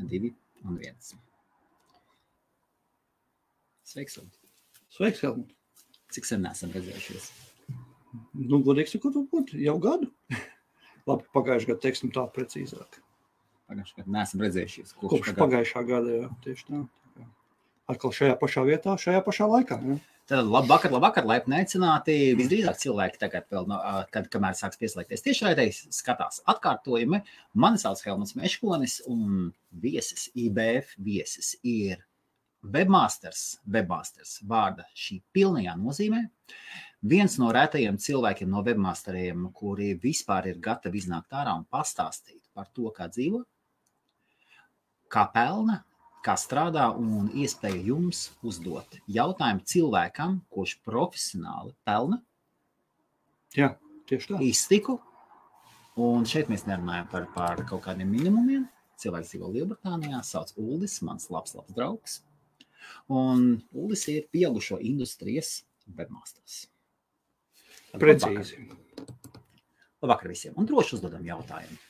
2 un 1. Sveiks, Helmut. Sveiks, Helmut. Cik sen neesam redzējušies? Nu, godīgi sakot, jau gadu. Labi, pagājušajā gadā teiksim tā precīzāk. Pagājušajā gadā neesam redzējušies. Kopš pagājušā gada, jā, tieši tā. Atkal šajā pašā vietā, šajā pašā laikā. Jā. Tad labvakar, laipni aicināti. Visdrīzāk cilvēki tagad vēl, kamēr sāks pieslēgties tiešraidē, skatās atkārtojumi. Mani sauc Helmuts Meškonis un viesis, IBF viesis ir webmasters vārda šī pilnajā nozīmē. Viens no retajiem cilvēkiem no webmasteriem, kuri vispār ir gatavi iznākt ārā un pastāstīt par to, kā dzīvo, kā pelna, kā strādā un iespēja jums uzdot jautājumu cilvēkam, kurš profesionāli pelna. Jā, tieši tā. Iztiku. Un šeit mēs nerunājam par kaut kādiem minimumiem. Cilvēks dzīvo Lielbritānijā, sauc Uldis, mans labs draugs. Un Uldis ir pieaugušo industrijas webmasters. Precīzi. Labvakar visiem. Un droši uzdodam jautājumu.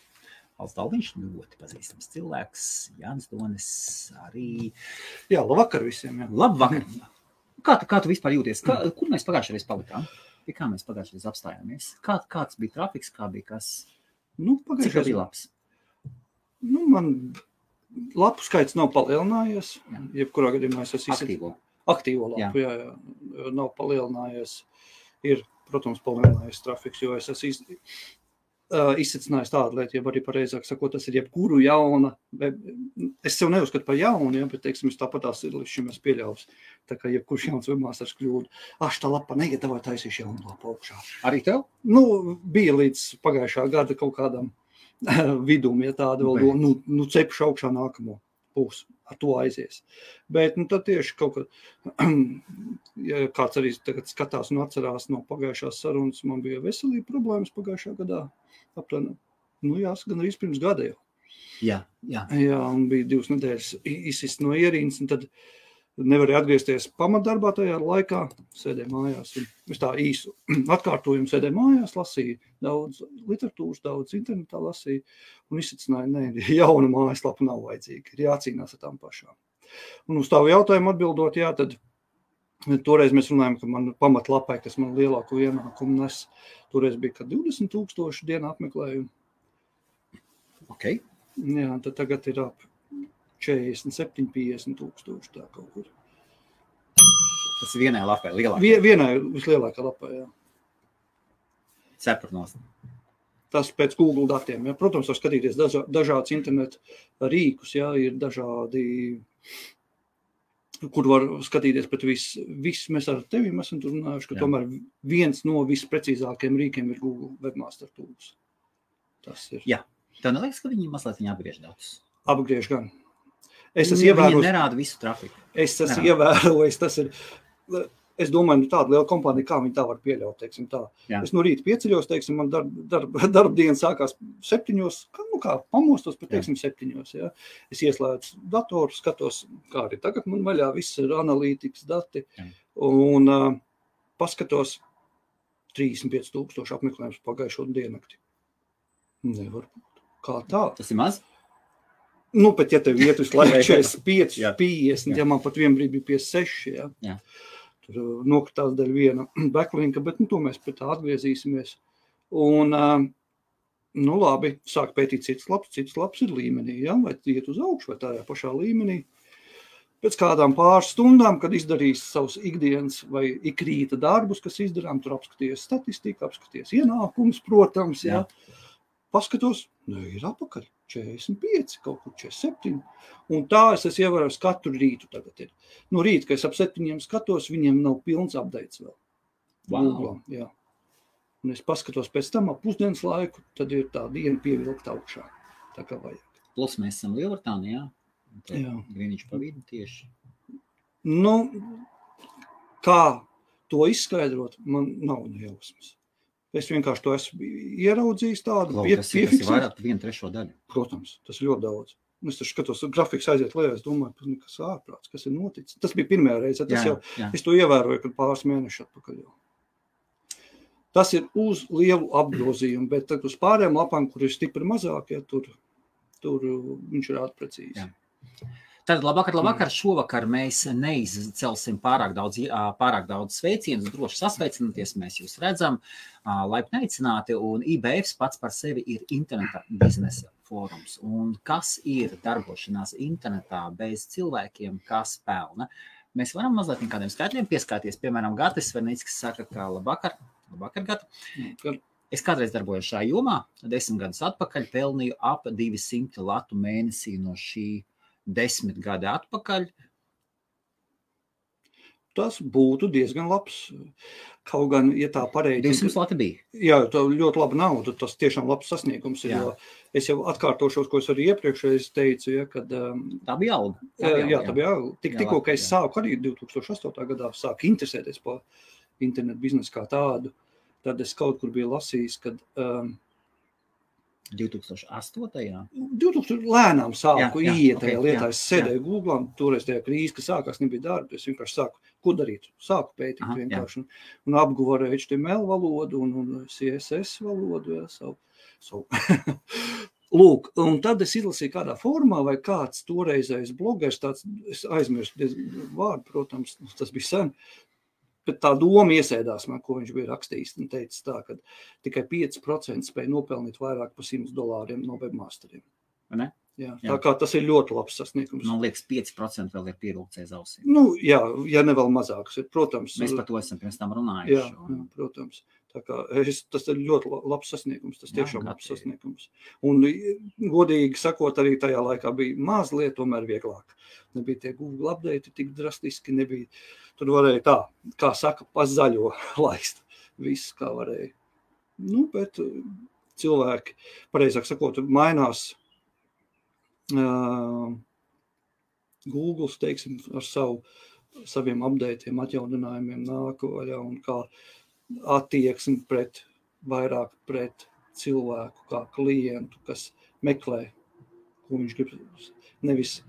Valsts Dalviņš ļoti pazīstams cilvēks. Jānis Donis arī. Jā, labvakar visiem. Jā. Labvakar. Kā tu vispār jūties? Kur mēs pagājušajā reiz palikām? Pie kā mēs pagājušajā reiz apstājāmies? Kāds bija trafiks? Kā bija kas? Cik bija labs? Man lapu skaits nav palielinājies. Jā. Jebkurā gadījumā es esmu aktīvo lapu. Jā. Nav palielinājies. Ir, protams, palielinājies trafiks, jo es esmu izsacinājis tādu lietu, ja arī pareizāk sakot, tas ir jebkuru jauna, es sev neuzskatu par jaunu, ja, bet, teiksim, es tāpatās ir līdz šim es pieļaus, tā kā jebkurš jauns webmasters kļūdu, tā lapa negatavoja taisīšu jaunu lapu augšā. Arī tev? Bija līdz pagājušā gada kaut kādam vidum, ja tāda vēl, cepšu augšā nākamo pusi, ar to aizies. Bet, tad tieši kaut kā, ja kāds arī tagad skatās un atcerās no pagājušās sarunas, man bija veselība problēmas pagājušā gadā, aptuveni, jāsaka, gan arī pirms gada jau. Jā. Jā, un bija 2 nedēļas izsist no ierīnas, un tad nevarēja atgriezties pamatdarbā tajā laikā, sēdēju mājās, un es tā īsu atkārtojumu sēdēju mājās, lasīju daudz literatūras, daudz internetā lasīju, un izsacināju, jauna mājaslapa nav vajadzīga, ir jācīnās ar tām pašām. Un uz tavu jautājumu atbildot, tad toreiz mēs runājam, ka man pamatlapai, kas man lielāko ienākumu nes, toreiz bija, ka 20,000 dienā apmeklējumu. Ok. Jā, tad tagad ir ap 47-50 tūkstoši tā kaut kur. Tas ir vienai lapai lielākā? Vienai vislielākā lapai, jā. Cepurnos. Tas pēc Google datiem, jā. Protams, var skatīties dažādas interneta rīkus, jā, ir dažādi, kur var skatīties, bet viss mēs ar tevi esam tur runājuši, ka tomēr viens no visprecīzākiem rīkiem ir Google Webmaster Tools. Tas ir. Jā. Tev neliekas, ka viņi mazliet apgriež datus? Apgriež gan. Viņi nerāda visu trafiku. Es esmu ievērojis, tas ir, es domāju, tāda liela kompānija, kā viņi tā var pieļaut, teiksim tā. Jā. Es no rīta pieceļos, teiksim, man darba diena sākās 7, kā pamostos, bet teiksim 7, jā. Es ieslēdzu datoru, skatos, kā arī tagad man vaļā, viss ir analītikas dati, un paskatos 35,000 apmeklējums pagājušo diennakti. Nevar būt. Kā tā? Tas ir maz? Bet ja tev iet uz laiku 45, 50, ja man pat vien brīd bija 56, jā. Tur nokritās daļa viena backlinka, bet to mēs pēc tā atgriezīsimies. Un, labi, sāk pētīt citas labs ir līmenī, ja? Vai iet uz augšu vai tajā pašā līmenī. Pēc kādām pāris stundām, kad izdarīs savus ikdienas vai ikrīta darbus, kas izdarām, tur apskaties statistiku, apskaties ienākumus, protams, jā. Paskatos, ir apakaļ 45, kaut kur 47. Un tā es esmu ievērojis katru rītu tagad ir. No rīta, kad es ap 7 skatos, viņiem nav pilns updates vēl. Wow. Jā. Un es paskatos pēc tam ap pusdienas laiku, tad ir tā diena pievilkta augšā. Tā kā vajag. Plus mēs esam Lielbritānijā. Jā. Grīniņš pa vidu tieši. Kā to izskaidrot, man nav nejausmas. Es vienkārši to esmu ieraudzījis tādu. Tas ir vairāk 1/3 daļu. Protams, tas ir ļoti daudz. Es taču skatos, grafiks aiziet lejā, es domāju, kas ārprāts, kas ir noticis. Tas bija pirmajā reize, es to ievēroju, kad pāris mēneši atpakaļ jau. Tas ir uz lielu apgrozījumu, bet tad uz pārējām lapām, kur ir stipri mazāk, tur viņš ir precīzi. Jā. Tad labvakar, šovakar mēs neizcelsim pārāk daudz sveicienus, droši sasveicināties, mēs jūs redzam, laipni aicināti, un IBF pats par sevi ir interneta biznesa fórums. Un kas ir darbošanās internetā bez cilvēkiem, kas pelna? Mēs varam mazliet kādiem skaitļiem pieskāties, piemēram, Gatis Vernickis saka, ka labvakar, Gati. Es kādreiz darbojos šajā jomā, 10 gadus atpakaļ pelnīju ap 200 latu mēnesī no šī 10 gadi atpakaļ. Tas būtu diezgan labs. Kaut gan, ja tā pareizi... 200 lati bija. Jā, tā ļoti laba nauda, tas tiešām labs sasniegums ir, jo es jau atkārtošos, ko es arī iepriekšreiz teicu, ja, kad... Tā bija alga. Tā bija alga. Tikko, ka es sāku arī 2008. gadā sāku interesēties par internetu biznesu kā tādu, tad es kaut kur biju lasījis, kad... 2008. 2000 lēnām sāku iet tajā lietā. Es sēdēju Googlā, toreiz tajā krīze, ka sākās, nebija darba. Es vienkārši sāku, ko darīt? Sāku pētīt vienkārši. Un apguvu ar HTML valodu un CSS valodu. Savu. Lūk, un tad es izlasīju kādā formā, vai kāds toreizējais blogers, tāds, es aizmirstu vārdu, protams, tas bija sen, bet tā doma iesēdās man, ko viņš bija rakstījis, un teica tā, ka tikai 5% spēja nopelnīt vairāk par $100 no webmasteriem. Ne? Jā. Tā kā tas ir ļoti labs sasniegums. Man liekas, 5% vēl ir pievilkts aiz ausīm. Nu, jā, ja ne vēl mazāks ir, protams. Mēs par to esam pirms tam runājuši. Jā, protams. Tā kā tas ir ļoti labs sasniegums, tas tiešām labs sasniegums. Un, godīgi sakot, arī tajā laikā bija mazliet tomēr vieglāk. Nebija tie Google update tik drastiski, nebija. Tur varēja tā, kā saka, pa zaļo laist. Viss, kā varēja. Nu, bet cilvēki, pareizāk sakot, mainās Google, teiksim, ar saviem updateiem, atjauninājumiem nāk vaļā un kā attieksmi vairāk pret cilvēku, kā klientu, kas meklē, ko viņš grib. Nevis,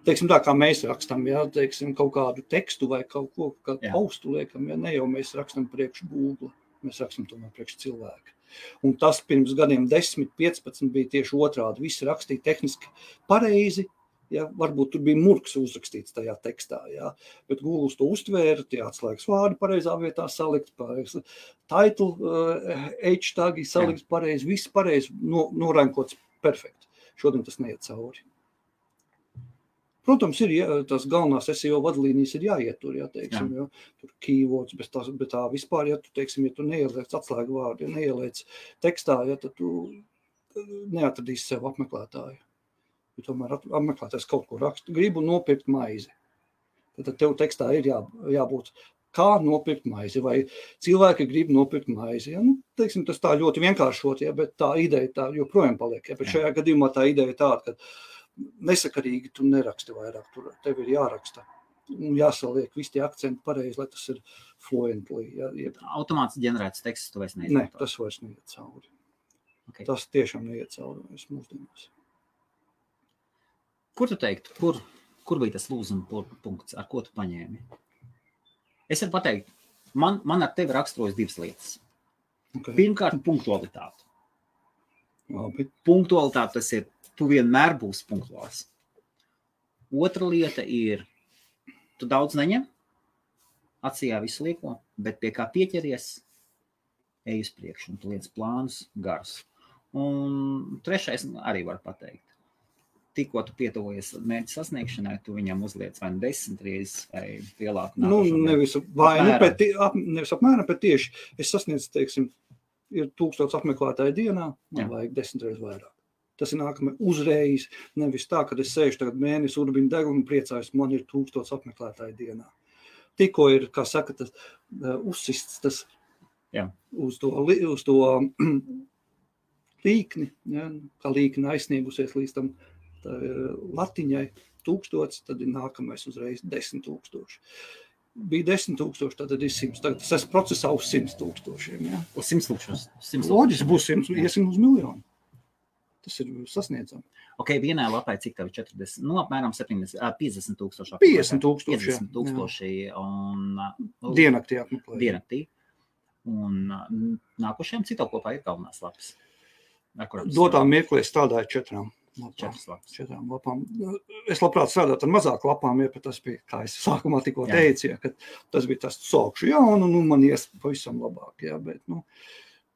teiksim tā, kā mēs rakstam, teiksim, kaut kādu tekstu vai kaut ko, kādu postu liekam, ne jau mēs rakstam priekš Google, mēs rakstam tomēr priekš cilvēku. Un tas pirms gadiem 10, 15 bija tieši otrādi. Visi rakstīja tehniski pareizi, varbūt tur bija murks uzrakstīts tajā tekstā, bet Google to uztvēra, tie atslēgas vārdi pareizā vietā salikt, title, h-tagi salikt pareizi, viss pareizi, norankots perfekti. Šodien tas neiet cauri. Protams, ir tās galvenās SEO vadlīnijas ir jāietur, teiksim, tur keywords, bet tā vispār, tu, teiksim, ja tu neieliec atslēgu vārdu, ja neieliec tekstā, tad tu neatradīsi sev apmeklētāju. Ja tomēr apmeklētājs kaut ko raksta, gribu nopirkt maizi. Tad tev tekstā ir jābūt, kā nopirkt maizi, vai cilvēki grib nopirkt maizi. Nu, teiksim, tas tā ļoti vienkāršot, bet tā ideja tā joprojām paliek. Bet šajā gadījumā tā ideja ir tāda, ka nesakarīgi tu neraksti vairāk, tev ir jāraksta un jāsaliek visi tie akcenti pareizi, lai tas ir fluently. Automāts ģenerēts teksts, tu vairs neizmanto? Ne, tas vairs neiet cauri. Okay. Tas tiešām neiet cauri mūsdienās. Kur tu teiktu, kur bija tas lūzuma punkts, ar ko tu paņēmi? Es varu pateikt, man ar tevi raksturojas divas lietas. Okay. Pirmkārt, punktualitāte. Labi. Punktualitāte tas ir, tu vienmēr būsi punktuāls. Otra lieta ir, tu daudz neņem, acījā visu lieko, bet pie kā pieķeries, ej uz priekšu, un tu liec plānus garus. Un trešais arī var pateikt. Tikko tu pietuvojies mērķa sasniegšanai, tu viņam uzliec vai 10 reizes vai lielāku nākošo. Nevis apmēram, bet tieši es sasniedzu, teiksim, ir 1000 apmeklētāju dienā, man vajag 10 reizes vairāk. Tas ir nākamais uzreiz, nevis tā, kad es sēžu tagad mēnesi urbinu degunu un priecājos, man ir 1000 apmeklētāju dienā. Tikko ir, kā saka, tas uzsists tas uz to līkni, kā līkni aizsniegusies līdz tam latiņai 1000, tad ir nākamais uzreiz 10 000. Bija 10 000, tad ir 100. Tagad tas procesā uz 100 000. Uz 100 000. Loģiski būs 100, iesim uz miljonu. Tas ir sasniedzami. Ok, vienā lapā cik tev 40, apmēram 50 000. 50 000. 50 000 un... Diennaktī apmeklēja. Diennaktī. Un nākošajam cik tev kopā ir galvenās lapas? Dotā mirklī strādāju 4. 4 lapām. Es labprāt strādātu ar mazāk lapām, ja tas bija, kā es sākumā tikko teicu, ja, ka tas bija tas sākšu jaunu, man ies pavisam labāk, ja, bet,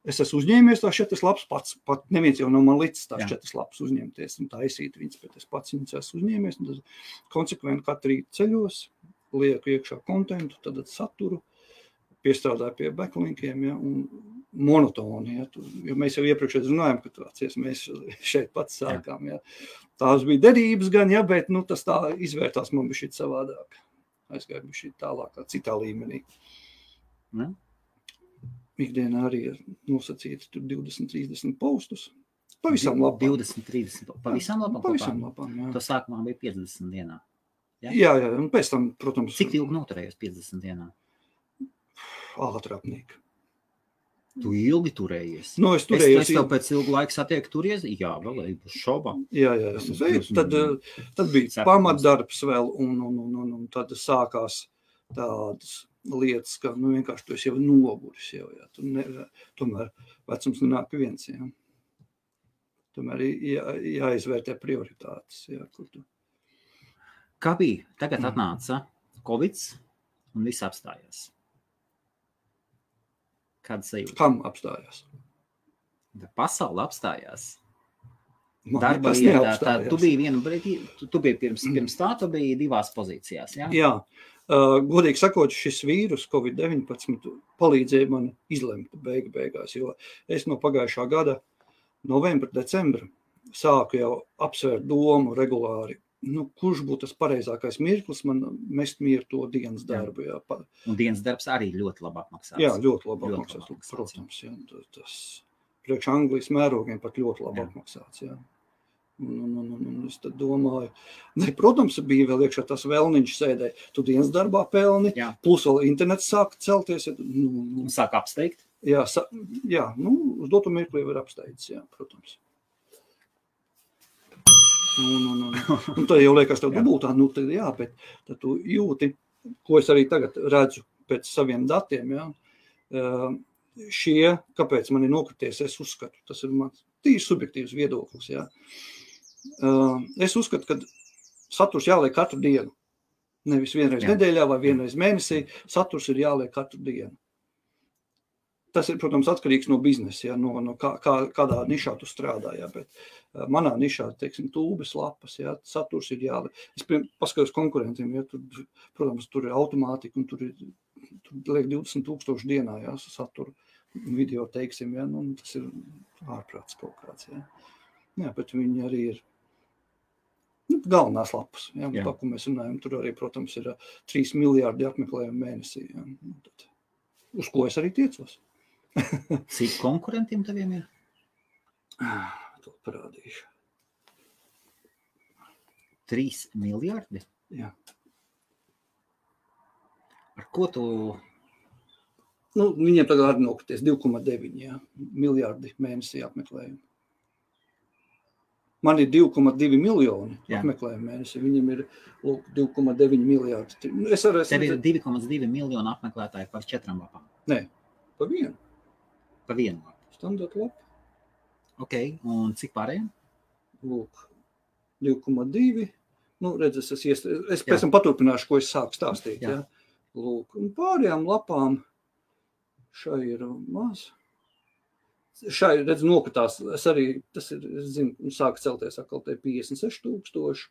es esmu uzņēmies tās 4 lapas pats, pat neviens jau nav man līdz tās 4 lapas uzņemties un taisīt viņas, bet es pats viņas esmu uzņēmies, un tas konsekventi katru rītu ceļos, lieku iekšā kontentu, tad saturu, piestrādāju pie backlinkiem, ja, un monotoni, ja, jo mēs jau iepriekš runājam, ka tāds, mēs šeit pats sākām, ja. Tās bija derības gan, ja, bet, tas tā izvērtās man bija šī savādāk. Aizgāju bija šī tālākā, citā līmenī. Ne? Ikdienā arī ir nosacīti tur 20-30 postus. Pavisam labām. 20-30, pavisam labām? Pavisam labām, jā. To sākumā bija 50 dienā. Ja? Jā, un pēc tam, protams... Cik ilgi noturējos 50 dienā? Ātrāpnīgi. Tu ilgi turējies? Es turējos. Es tev pēc ilgu laiku satieku turies? Jā, vēl uz šobā. Jā, tad bija pamatdarbs vēl, un tad sākās tādas lietas, ka vienkārši tu esi jau noguris jau, jā. Tomēr vecums nenāk viens, jā. Tomēr jāizvērtē prioritātes, jā, kur tu. Kā bija? Tagad atnāca Covids un viss apstājās. Kāda sajūta? Kam apstājās? Pasaule apstājās. Darba vietā. Tu biji vienu brīdi, tu biji pirms tā, tu biji 2 pozīcijās, jā? Jā. Godīgi sakot, šis vīrus COVID-19 palīdzēja man izlemt beigās, jo es no pagājušā gada novembra, decembra sāku jau apsvērt domu regulāri. Kurš būtu tas pareizākais mirklis man mest mieru to dienas darbu. Jā. Un dienas darbs arī ļoti labi apmaksās. Jā, ļoti labi apmaksās, protams. Jā. Tas priekš Anglijas mērogiem pat ļoti labi apmaksāts. Jā. Un es tad domāju, protams, bija vēl iekšā tas vēlniņš sēdē, tu dienas darbā pelni, plus vēl internets sāk celties. Sāk apsteigt? Jā, uz dotu mirkli var apsteigts, jā, protams. Un tad jau liekas tev dubultā, tad jā, bet tad tu jūti, ko es arī tagad redzu pēc saviem datiem, jā. Kāpēc man ir nokrities, es uzskatu, tas ir mans tīri subjektīvs viedoklis, jā. Es uzskatu, ka saturs jāliek katru dienu. Nevis vienreiz nedēļā vai vienreiz mēnesī, saturs ir jāliek katru dienu. Tas ir, protams, atkarīgs no biznesa, ja, no kādā nišā tu strādā, ja, bet manā nišā, teiksim, tūbes lapas, ja, saturs ir jāliek. Es paskatos konkurentiem, ja, protams, tur ir automātika un tur liek 20,000 dienā, ja, saturu video, teiksim, ja, tas ir ārprāts kaut kāds, ja. Jā, bet viņi arī ir galvenās lapas, ja, tā, ko mēs runājam, tur arī, protams, ir 3 miljārdi apmeklējumu mēnesī, ja, tad, uz ko es arī tiecos. Cik konkurentiem taviem ir? To parādīšu. 3 miljardi? Jā. Ar ko tu... Viņiem tagad arī nokrities 2,9 miljardi mēnesī apmeklējumu. Man ir 2,2 miljoni apmeklējumu mēnesī, viņiem ir 2,9 miljardi. Tev ir 2,2 miljoni apmeklētāji par 4 lapām? Nē, pa vienu. Pa vienu lapu? Standarta lapa. Ok, un cik pārējiem? 2,2. Es pēc tam paturpināšu, ko es sāku stāstīt. Ja? Un pārējām lapām šai ir maz. Šai, nokatās, tas ir, es zinu, sāk celties atkal te 56,000.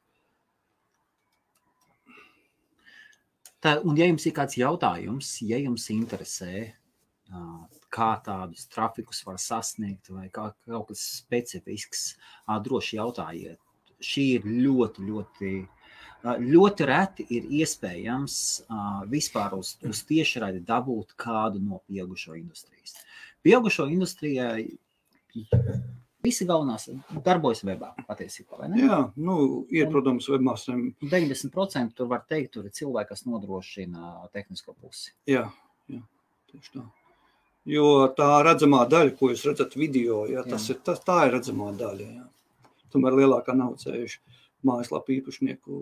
Un ja jums ir kāds jautājums, ja jums interesē, kā tādus trafikus var sasniegt vai kaut kas specifisks, droši jautājiet. Šī ir ļoti reti ir iespējams vispār uz tiešraidi dabūt kādu no pieaugušo industrijas. Pieaugušo industrijai visi galvenās darbojas webā patiesībā, vai ne? Jā, ir, protams, webmasteriem. 90% tur var teikt, tur ir cilvēki, kas nodrošina tehnisko pusi. Jā, tieši tā. Jo tā redzamā daļa, ko jūs redzat video, tā ir redzamā daļa. Jā. Tomēr lielākā nav ceļuši mājaslapu īpašnieku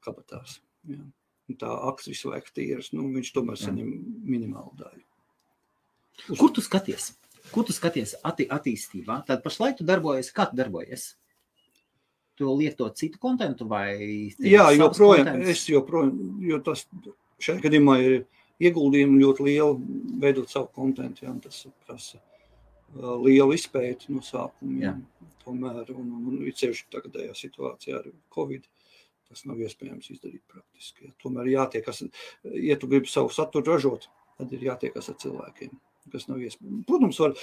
kabatās. Jā. Un tā aks visu laiku tīras, viņš tomēr saņem minimālu daļu. Kur tu skaties? Kur tu skaties attīstībā? Tad pašlaik tu darbojies, kā tu darbojies? tu lietot citu kontentu vai? Jā, joprojām, jo tas šajā gadījumā ir ieguldījumi ļoti lieli veidot savu kontentu, jā, tas prasa lielu izpēti no sākuma, jā. Tomēr, un ceļši tagadējā situācijā ar Covid, tas nav iespējams izdarīt praktiski. Jā. Tomēr jātiekas, ja tu gribi savu saturu ražot, tad ir jātiekas ar cilvēkiem, kas nav iespējams. Protams, var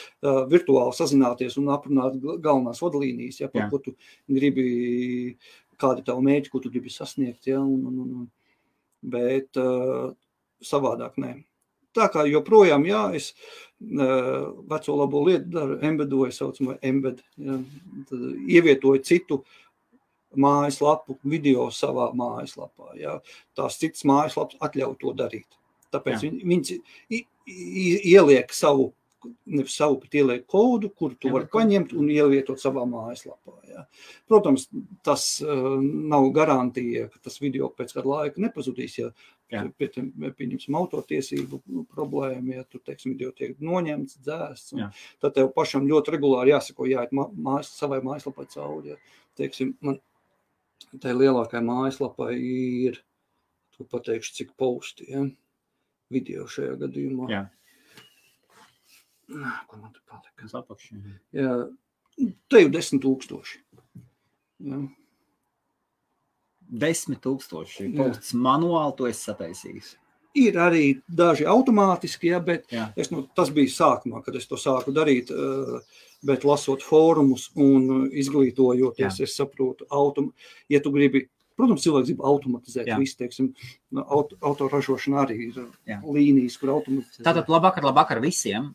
virtuāli sazināties un aprunāt galvenās vadlīnijas, ja, par ko tu gribi, kādi tavu mērķi, ko tu gribi sasniegt, ja, bet savādāk nē. Tā kā joprojām, jā, es veco labo lietu daru, embedoju, saucamā embed, ja, tad ievietoju citu mājaslapu, video savā mājaslapā, ja. Tās citas mājaslapas atļauj to darīt. Tāpēc viņas ieliek savu, nevis savu, bet ieliek kodu, kuru tu vari paņemt un ievietot savā mājaslapā. Ja. Protams, tas nav garantija, ka tas video pēc kāda laika nepazudīs, ja pieņemsim autortiesību problēmu, ja tur, teiksim, video tiek noņemts, dzēsts, tad tev pašam ļoti regulāri jāsako, jāiet savai mājaslapai cauri. Ja. Teiksim, man tai lielākai mājaslapai ir, tu pateikšu, cik posti, ja, video šajā gadījumā. Jā. Ko man te palika? Sapakši. Jā, te jau 10,000. Jā. 10,000 posts manuāli to esi sataisījis. Ir arī daži automātiski, ja, bet tas bija sākumā, kad es to sāku darīt, bet lasot fórumus un izglītojoties, es saprotu, ja tu gribi, protams, cilvēks grib automatizēt visu, teiksim, autoražošana arī ir līnijas, kur automatizēt. Tātad labvakar visiem.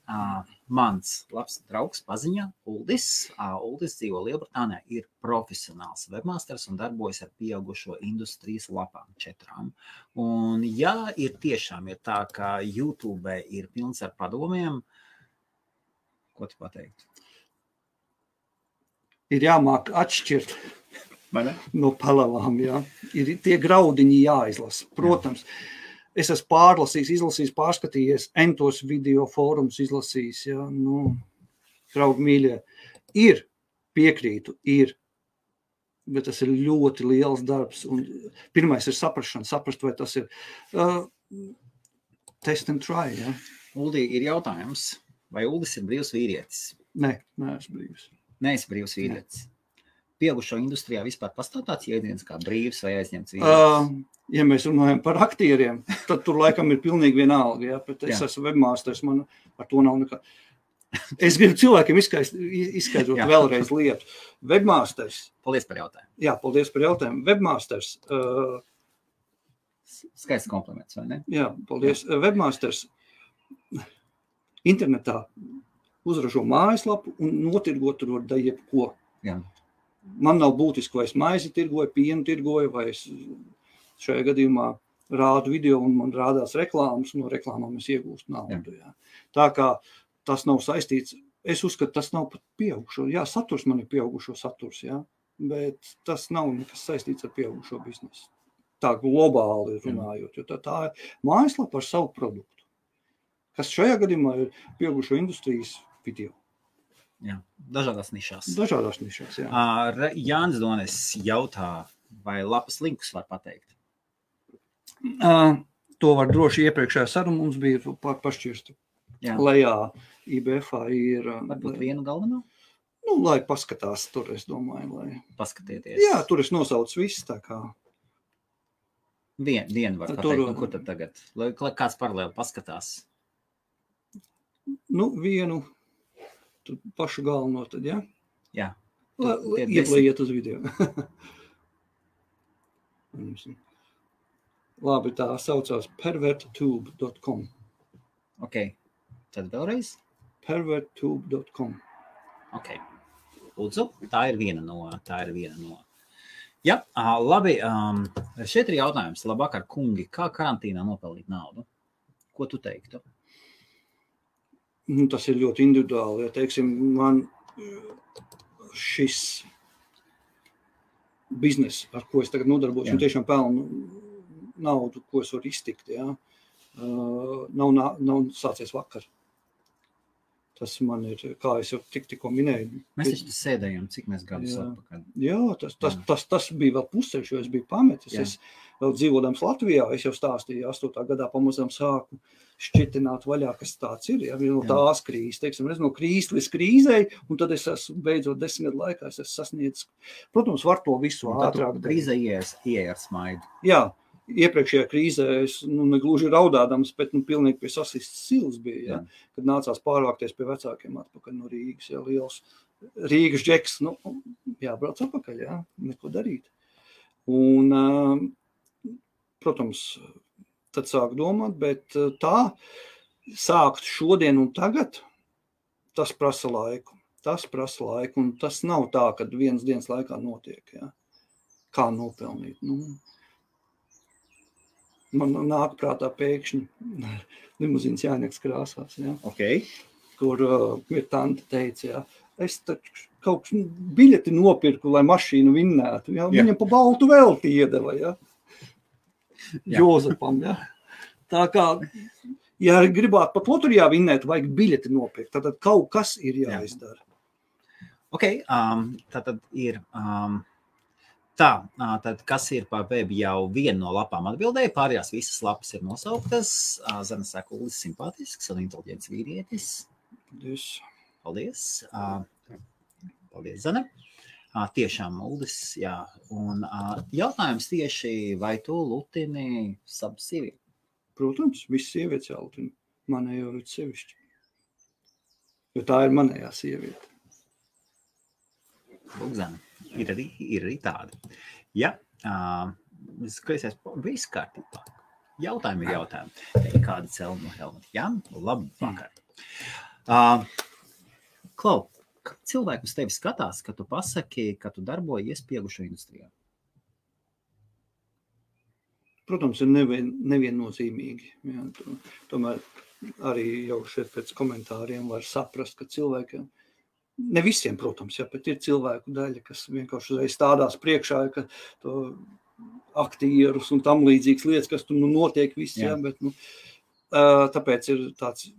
Mans labs draugs paziņā, Uldis dzīvo Lielbritānijā, ir profesionāls webmasters un darbojas ar pieaugušo industrijas lapām 4. Un ja ir tiešām ir tā, ka YouTube ir pilns ar padomiem, ko tu pateikt? Ir jāmāk atšķirt no palavām, jā. Ir tie graudiņi jāizlasa, protams. Es esmu pārlasījis, izlasījis, pārskatījies, entos video fórums izlasījis, ja, draugi mīļie. Ir, piekrītu, bet tas ir ļoti liels darbs. Un pirmais ir saprašana, saprast, vai tas ir test and try, ja. Uldi, ir jautājums, vai Uldis ir brīvs vīrietis? Nē, neesmu brīvs. Neesi brīvs vīrietis. Pieaugušo industrijā vispār pastāv tāds jēdziens kā brīvs vai aizņemts vīrietis? Ja mēs runājam par aktieriem, tad tur laikam ir pilnīgi vienalga, ja, bet es esmu webmasters, man ar to nav nekā. Es gribu cilvēkiem izskaidrot vēlreiz lietu. Webmasters. Paldies par jautājumu. Jā, paldies par jautājumu. Webmasters. Skaists kompliments, vai ne? Jā, paldies. Jā. Webmasters internetā uzražo mājaslapu un notirgot tur var da jebko. Jā. Man nav būtiski, vai es maizi tirgoju, pienu tirgoju, vai es šajā gadījumā rādu video un man rādās reklāmas, no reklāmām es iegūstu naudu. Jā. Tā kā tas nav saistīts, es uzskatu, tas nav pat pieaugušo. Jā, saturs man ir pieaugušo saturs, jā, bet tas nav nekas saistīts ar pieaugušo biznesu. Tā globāli runājot, jo tā ir mājaslapa ar savu produktu, kas šajā gadījumā ir pieaugušo industrijas video. Jā, dažādās nišās. Dažādās nišās, jā. Jānis Donis jautā, vai lapas linkus var pateikt? To var droši iepriekšējā saruna mums bija pašķirstu. Lejā IBF-ā ir... Varbūt vienu galveno? Lai paskatās tur, es domāju, lai... Paskatieties. Jā, tur es nosaucu viss, tā kā... Vienu var pateikt, kur tad tagad? Lai kāds paralēli paskatās? Vienu, tur pašu galveno tad, jā? Jā. Lai iet uz video. Labi, tā saucās perverttube.com. Ok, tad vēlreiz? Perverttube.com. Ok, lūdzu, tā ir viena no. Jā, labi, šeit ir jautājums. Labvakar, kungi, kā karantīnā nopelnīt naudu? Ko tu teiktu? Tas ir ļoti individuāli, ja teiksim, man šis biznes, ar ko es tagad nodarbojos, un tiešām pelnu naudu, ko es varu iztikt, ja, nav sācies vakar. Tas man ir, kā es jau tikko minēju. Mēs taču sēdējām, cik mēs gadus atpakaļ. Jā, tas bija vēl pusceļš, jo es biju pametis. Es vēl dzīvodams Latvijā, es jau stāstīju, 8. gadā pamazām sāku šķitināt vaļā, kas tāds ir. Ja, no tās krīzes, teiksim, no krīzes līdz krīzei, un tad es esmu beidzot 10 gadu laikā, es esmu sasniedzis. Protams, var to visu ātrāk. Krīze ieeja ar smaidu. Jā. Iepriekšējā krīzē es negluži raudādams, bet pilnīgi pie sasistas silas bija, kad nācās pārvākties pie vecākiem atpakaļ no Rīgas. Ja, liels Rīgas džeks, jābrauc atpakaļ, neko darīt. Un, protams, tad sāk domāt, bet tā sākt šodien un tagad, tas prasa laiku. Un tas nav tā, kad vienas dienas laikā notiek. Ja. Kā nopelnīt? Man nāk prātā pēkšņi limuzīnas Jāņeks krāsās, kur ir tante teica, es taču kaut biļeti nopirku, lai mašīnu vinnētu. Viņam pa baltu velti iedeva, Jozepam. Tā kā, ja gribētu pat loterijā vinnēt, vajag biļeti nopirkt, tad kaut kas ir jāizdara. Tātad ir... Tad kas ir par web jau viena no lapām atbildēja, pārējās visas lapas ir nosauktas. Zana saka, Uldis simpātisks un inteliģents vīrietis. Paldies. Paldies, Zana. Tiešām Uldis, jā. Un jautājums tieši, vai tu lutini savu sievieti? Protams, viss sievietes jālutina. Manējo ir sevišķi. Jo tā ir manējā sieviete. Lūk, Zana. Ir arī tāda. Ja, skaties, viss kārtībā. Jautājumi ir jautājumi. Kāda cēluma no Helmuta? Jā, labvakar. Klau, kā cilvēki uz tevi skatās, kad tu pasaki, ka tu darbojies pieaugušo industrijā? Protams, ir neviennozīmīgi. Jā, tomēr arī jau šeit pēc komentāriem var saprast, ka cilvēkiem ne visiem, protams, bet ir cilvēku daļa, kas vienkārši uzreiz stādās priekšā, ka to aktierus un tam līdzīgas lietas, kas tur notiek viss, bet tāpēc ir tāds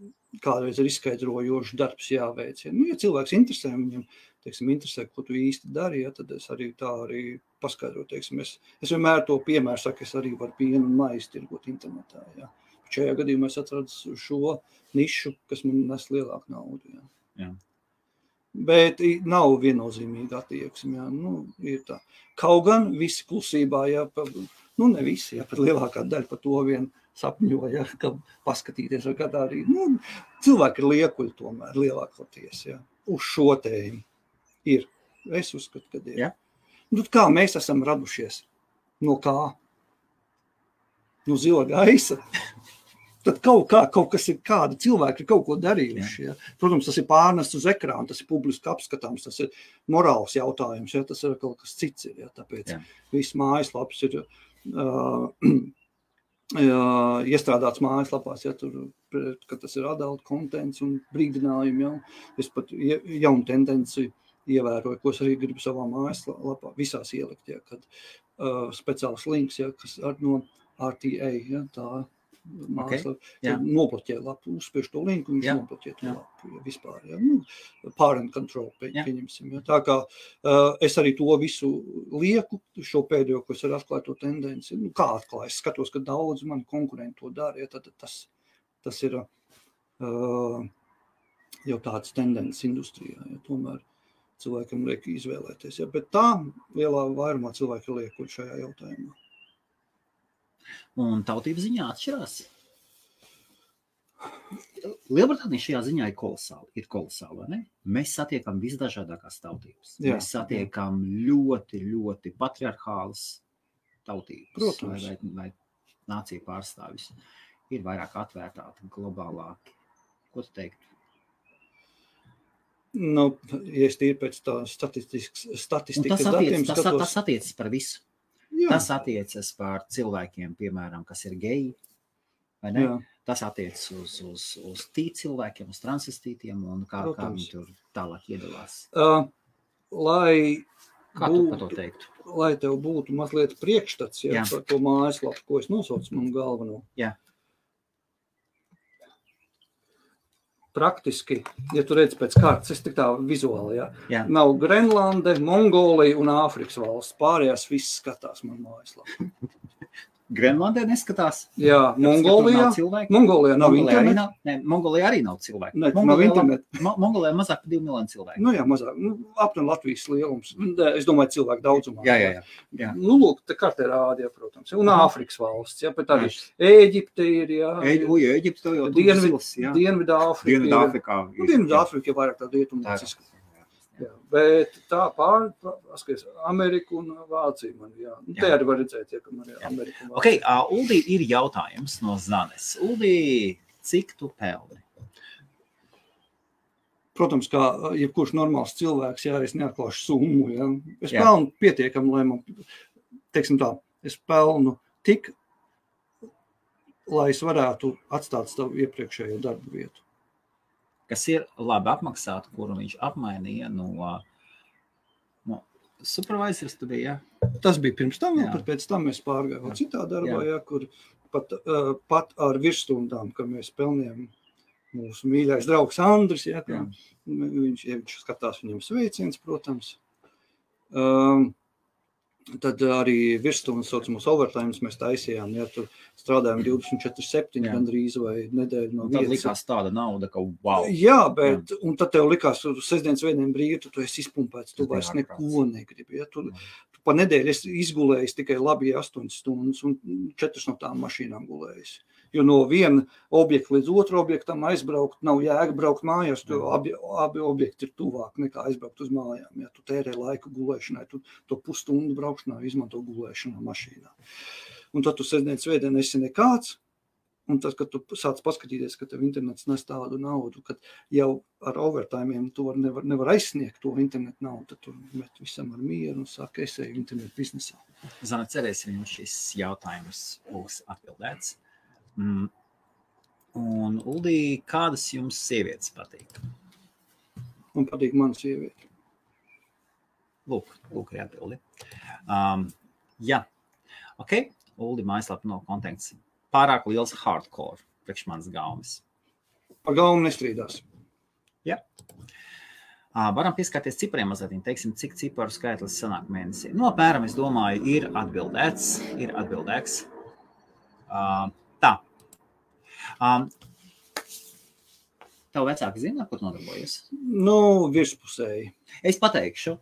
kādreiz ir izskaidrojošs darbs jāveic. Ja cilvēks interesē, viņam, teiksim, interesē, ko tu īsti dari, tad es arī tā arī paskaidroju, teiksim, es vienmēr to piemēru saku, es arī varu pienu un maizi tirgot internetā, Šajā gadījumā es atradu šo nišu, kas man nes lielāku naudu, Bet nav viennozīmīga attieksme, ir tā. Kaut gan visi klusībā, ne visi, pat lielākā daļa par to vien sapņo, ka paskatīties, vai kādā arī, cilvēki ir liekuļi tomēr, lielākoties, uz šo tēmu ir. Es uzskatu, ka ir. Kā mēs esam radušies? No kā? No zila gaisa? Tad kaut kas ir, kādi cilvēki ir kaut ko darījuši. Protams, tas ir pārnests uz ekrānu, tas ir publiski apskatāms, tas ir morāls jautājums, tas ir kaut kas cits. Tāpēc viss mājaslaps ir iestrādāts mājaslapās, ka tas ir adult contents un brīdinājumi. Es pat jaunu tendenci ievēroju, ko es arī gribu savā mājaslapā visās ielikt, kad speciāls links, kas no RTA, tā nobloķē lapu, uzspiež to linku, viņš nobloķē to lapu, vispār, parent control, pieņemsim. Tā kā es arī to visu lieku, šo pēdējo, ko es arī atklāju to tendenci, kā atklāju, es skatos, ka daudz mani konkurenti to dara, tad tas ir jau tāds tendences industrijā, tomēr cilvēkam liek izvēlēties, bet tā lielā vairumā cilvēki ir liekuļi šajā jautājumā. Un tautības ziņā atšķirās. Lielbritānija šajā ziņā ir kolosāla, vai ne? Mēs satiekam visdažādākās tautības. Mēs satiekam ļoti, ļoti patriarchālas tautības. Protams. Vai nācija pārstāvis. Ir vairāk atvērtāki, globālāki. Ko tu teiktu? Ja es tīri pēc tā statistikas datiem skatos. Tas attiecas par visu. Tas attiecas par cilvēkiem, piemēram, kas ir geji, vai ne? Tas attiecas uz cilvēkiem, uz transvestītiem un kā viņi tur tālāk iedalās. Kā tu par to teiktu? Lai tev būtu mazliet priekšstats par to mājaslapu, ko es nosaucu manu galveno. praktiski, ja tu redz pēc kārtas, es tik tā vizuāli, Jā. nav Grenlande, Mongolija un Āfrikas valsts. Pārējās viss skatās man mājaslapā. Grenlandē neskatās. Jā, Mongolijā nav interneta. Mongolijā arī nav cilvēku. Nav interneta. Mongolijā mazāk par 2 miljonu cilvēku. Nu jā, mazāk. Aptuveni Latvijas lielums. Es domāju, cilvēku daudzumā. Jā. Nu, lūk, te kartē rādi, protams. Un Āfrikas valsts, bet arī Ēģipte ir, Ēģipte jau Dienvidāfrika. Dienvidāfrika ir vairāk tā rietumnieciska. Jā, bet tā paskaties, Ameriku un Vāciju man, Te arī var redzēt, ka man ir Amerika un Vācija. Ok, Uldī, ir jautājums no Zanes. Uldī, cik tu pelni? Protams, kā jebkurš normāls cilvēks, es neatklāšu summu, Es pelnu pietiekam, lai man, teiksim tā, es pelnu tik, lai es varētu atstāt savu iepriekšējo darbu vietu. Kas ir labi apmaksāta, kuru viņš apmainīja no supervisors tu bija, Tas bija pirms tam, bet pēc tam mēs pārgājām citā darbā, kur pat ar virsstundām, ka mēs pelnījām mūsu mīļais draugs Andris, viņš skatās viņam sveiciens, protams. Tad arī virsstundas saucamos overtimes mēs taisījām, tur strādājām 24/7 gandrīz vai nedēļu no vietas. Tad likās tāda nauda, ka wow. Jā, bet, un tad tev likās, sestdienas svētdien brīvi, tu esi izpumpēts, tu vairs neko negribi. Tu pa nedēļu esi izgulējis tikai labi 8 stundas un 4 no tām mašīnām gulējis. Jo no viena objekta līdz otru objektam aizbraukt nav jēga braukt mājās, jo abi objekti ir tuvāk nekā aizbraukt uz mājām. Ja tu tērē laiku gulēšanai, tu to pusstundu braukšanā izmanto gulēšanā mašīnā. Un tad tu sestdienas svētdien esi nekāds, un tad, kad tu sāc paskatīties, ka tev internets nes tādu naudu, kad jau ar overtimiem tu nevar aizsniegt to internetu naudu, tad tu met visam ar mieru un saka, es eju internetu biznesā. Zana, cerēsim, jums šis jautājums būs atbildēts. Un, Uldī, kādas jums sievietes patīk? Man patīk mana sieviete. Lūk ir atbildi. Jā. Ok, Uldī mājaslapa no konteksts. Pārāk liels hardcore priekš manas gaumes. Par gaumu nestrīdās. Jā. Varam pieskārties cipariem mazliet, teiksim, cik ciparu skaitlis sanāk mēnesī. No apmēram, es domāju, ir atbildēts. Tā. Tev vecāki zina, kur nodarbojas? Virspusēji. Es pateikšu,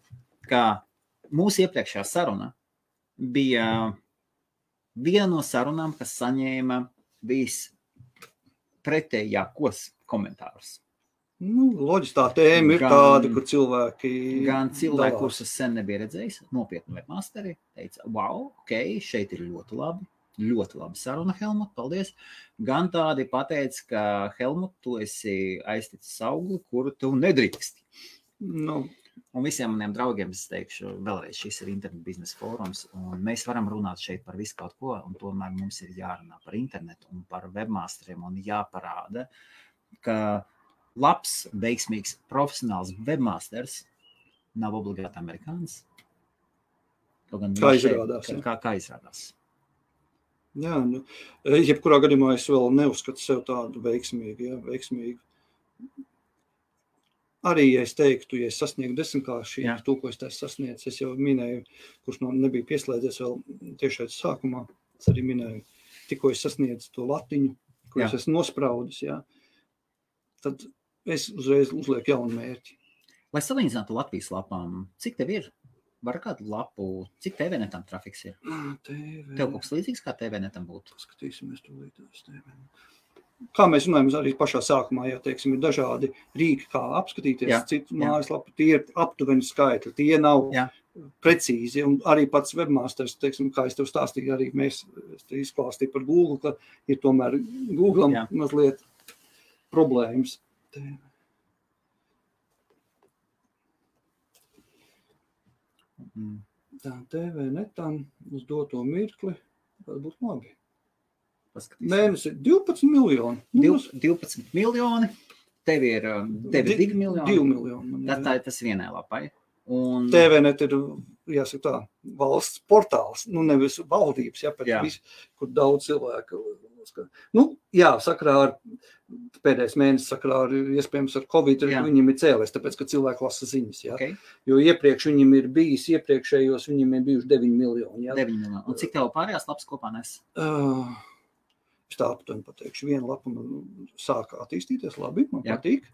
ka mūsu iepriekšējā saruna bija viena no sarunām, kas saņēma vispretējākos komentārus. Loģiski tā tēma ir tāda, kur cilvēki... Gan cilvēki, kurus es sen nebija redzējis, nopietni webmasteri, teica, wow, ok, šeit ir ļoti labi saruna, Helmut, paldies. Gan tādi pateica, ka Helmut, tu esi aizticis augli, kuru tu nedrīksti. Un visiem maniem draugiem es teikšu, vēlreiz šis ir internet biznesa fórums, un mēs varam runāt šeit par visu kaut ko, un tomēr mums ir jārunā par internetu un par webmasteriem, un jāparāda, ka labs, veiksmīgs, profesionāls webmasters nav obligāti amerikānis. Kā izrādās. Kā izrādās. Jā, jebkurā gadījumā es vēl neuzskatu sev tādu veiksmīgu. Arī, ja es teiktu, ja es sasniegu 10-kārši, to, ko es sasniedzu, es jau minēju, kurš nebija pieslēdzies vēl tiešais sākumā, es arī minēju, tikko es sasniedzu to latiņu, ko es esmu nospraudis, tad es uzreiz uzlieku jaunu mērķi. Lai salīdzinātu Latvijas lapām, cik tev ir? Var kādu lapu, cik TVnetam trafiks ir? Tev kaut kas līdzīgs, kā TVnetam būtu? Skatīsimies to līdzās TVnetam. Kā mēs runājam arī pašā sākumā, teiksim, ir dažādi rīki, kā apskatīties citu mājaslapu, tie ir aptuveni skaitļi, tie nav precīzi, un arī pats webmasters, teiksim, kā es tev stāstīju, arī mēs izklāstīju par Google, ka ir tomēr Google'am mazliet problēmas. Tā TVnetam uz doto mirkli, tas būtu labi. Mēnesi 12 miljoni. 12 miljoni, tev ir 2 miljoni. 2 miljoni. Tas vienai lapai. Un... TVnet ir, jāsaka tā, valsts portāls, nevis valdības, bet viss, kur daudz cilvēku Jā, sakrā ar pēdējais mēnesis sakrā ar, iespējams, ar Covid, viņiem ir cēlies, tāpēc, ka cilvēki lasa ziņas, jā. Okay. Jo iepriekš viņiem ir bijis, iepriekšējos viņiem ir bijuši 9 miljoni, jā. 9 miljoni. Un cik tev pārējās lapas kopā nes? Es tā aptuveni pateikšu, viena lapa sāka attīstīties labi, man patīk,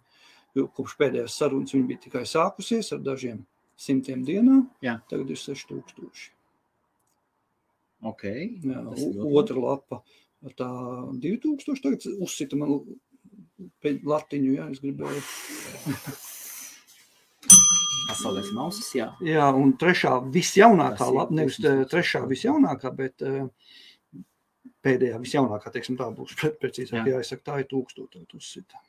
jo kopš pēdējās sarunas viņa bija tikai sākusies ar dažiem 100 dienā, tagad ir 6000. Okay. Jā, otra lapa. Tā 2000 tagad uzsita man latiņu, jā, es gribēju. Pasaulēs mausas, jā. Jā, un trešā visjaunākā lapa, nevis trešā visjaunākā, bet pēdējā visjaunākā, teiksim, tā būs precīzāk, jāsaka, tā ir 1000 uzsita.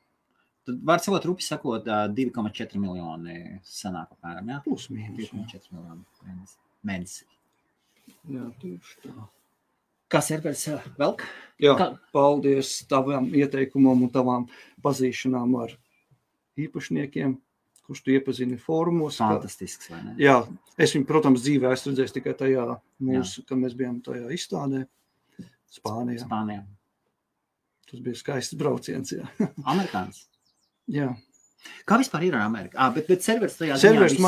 Tad var savot rupi sakot 2,4 miljoni sanāk apmēram, jā? Plus mīnus. 2,4 miljoni mēnesi. Jā, tieši tā. Kā serveris velk? Jā, paldies tavam ieteikumam un tavām pazīšanām ar īpašniekiem, kurš tu iepazini fórumos. Fantastisks, vai ne? Jā, es viņu, protams, dzīvē esmu redzējis tikai tajā kad mēs bijām tajā izstādē Spānijā. Tas bija skaists brauciens, jā. Amerikāns? Jā. Kā vispār ir ar Ameriku? Bet serveris tajā serveris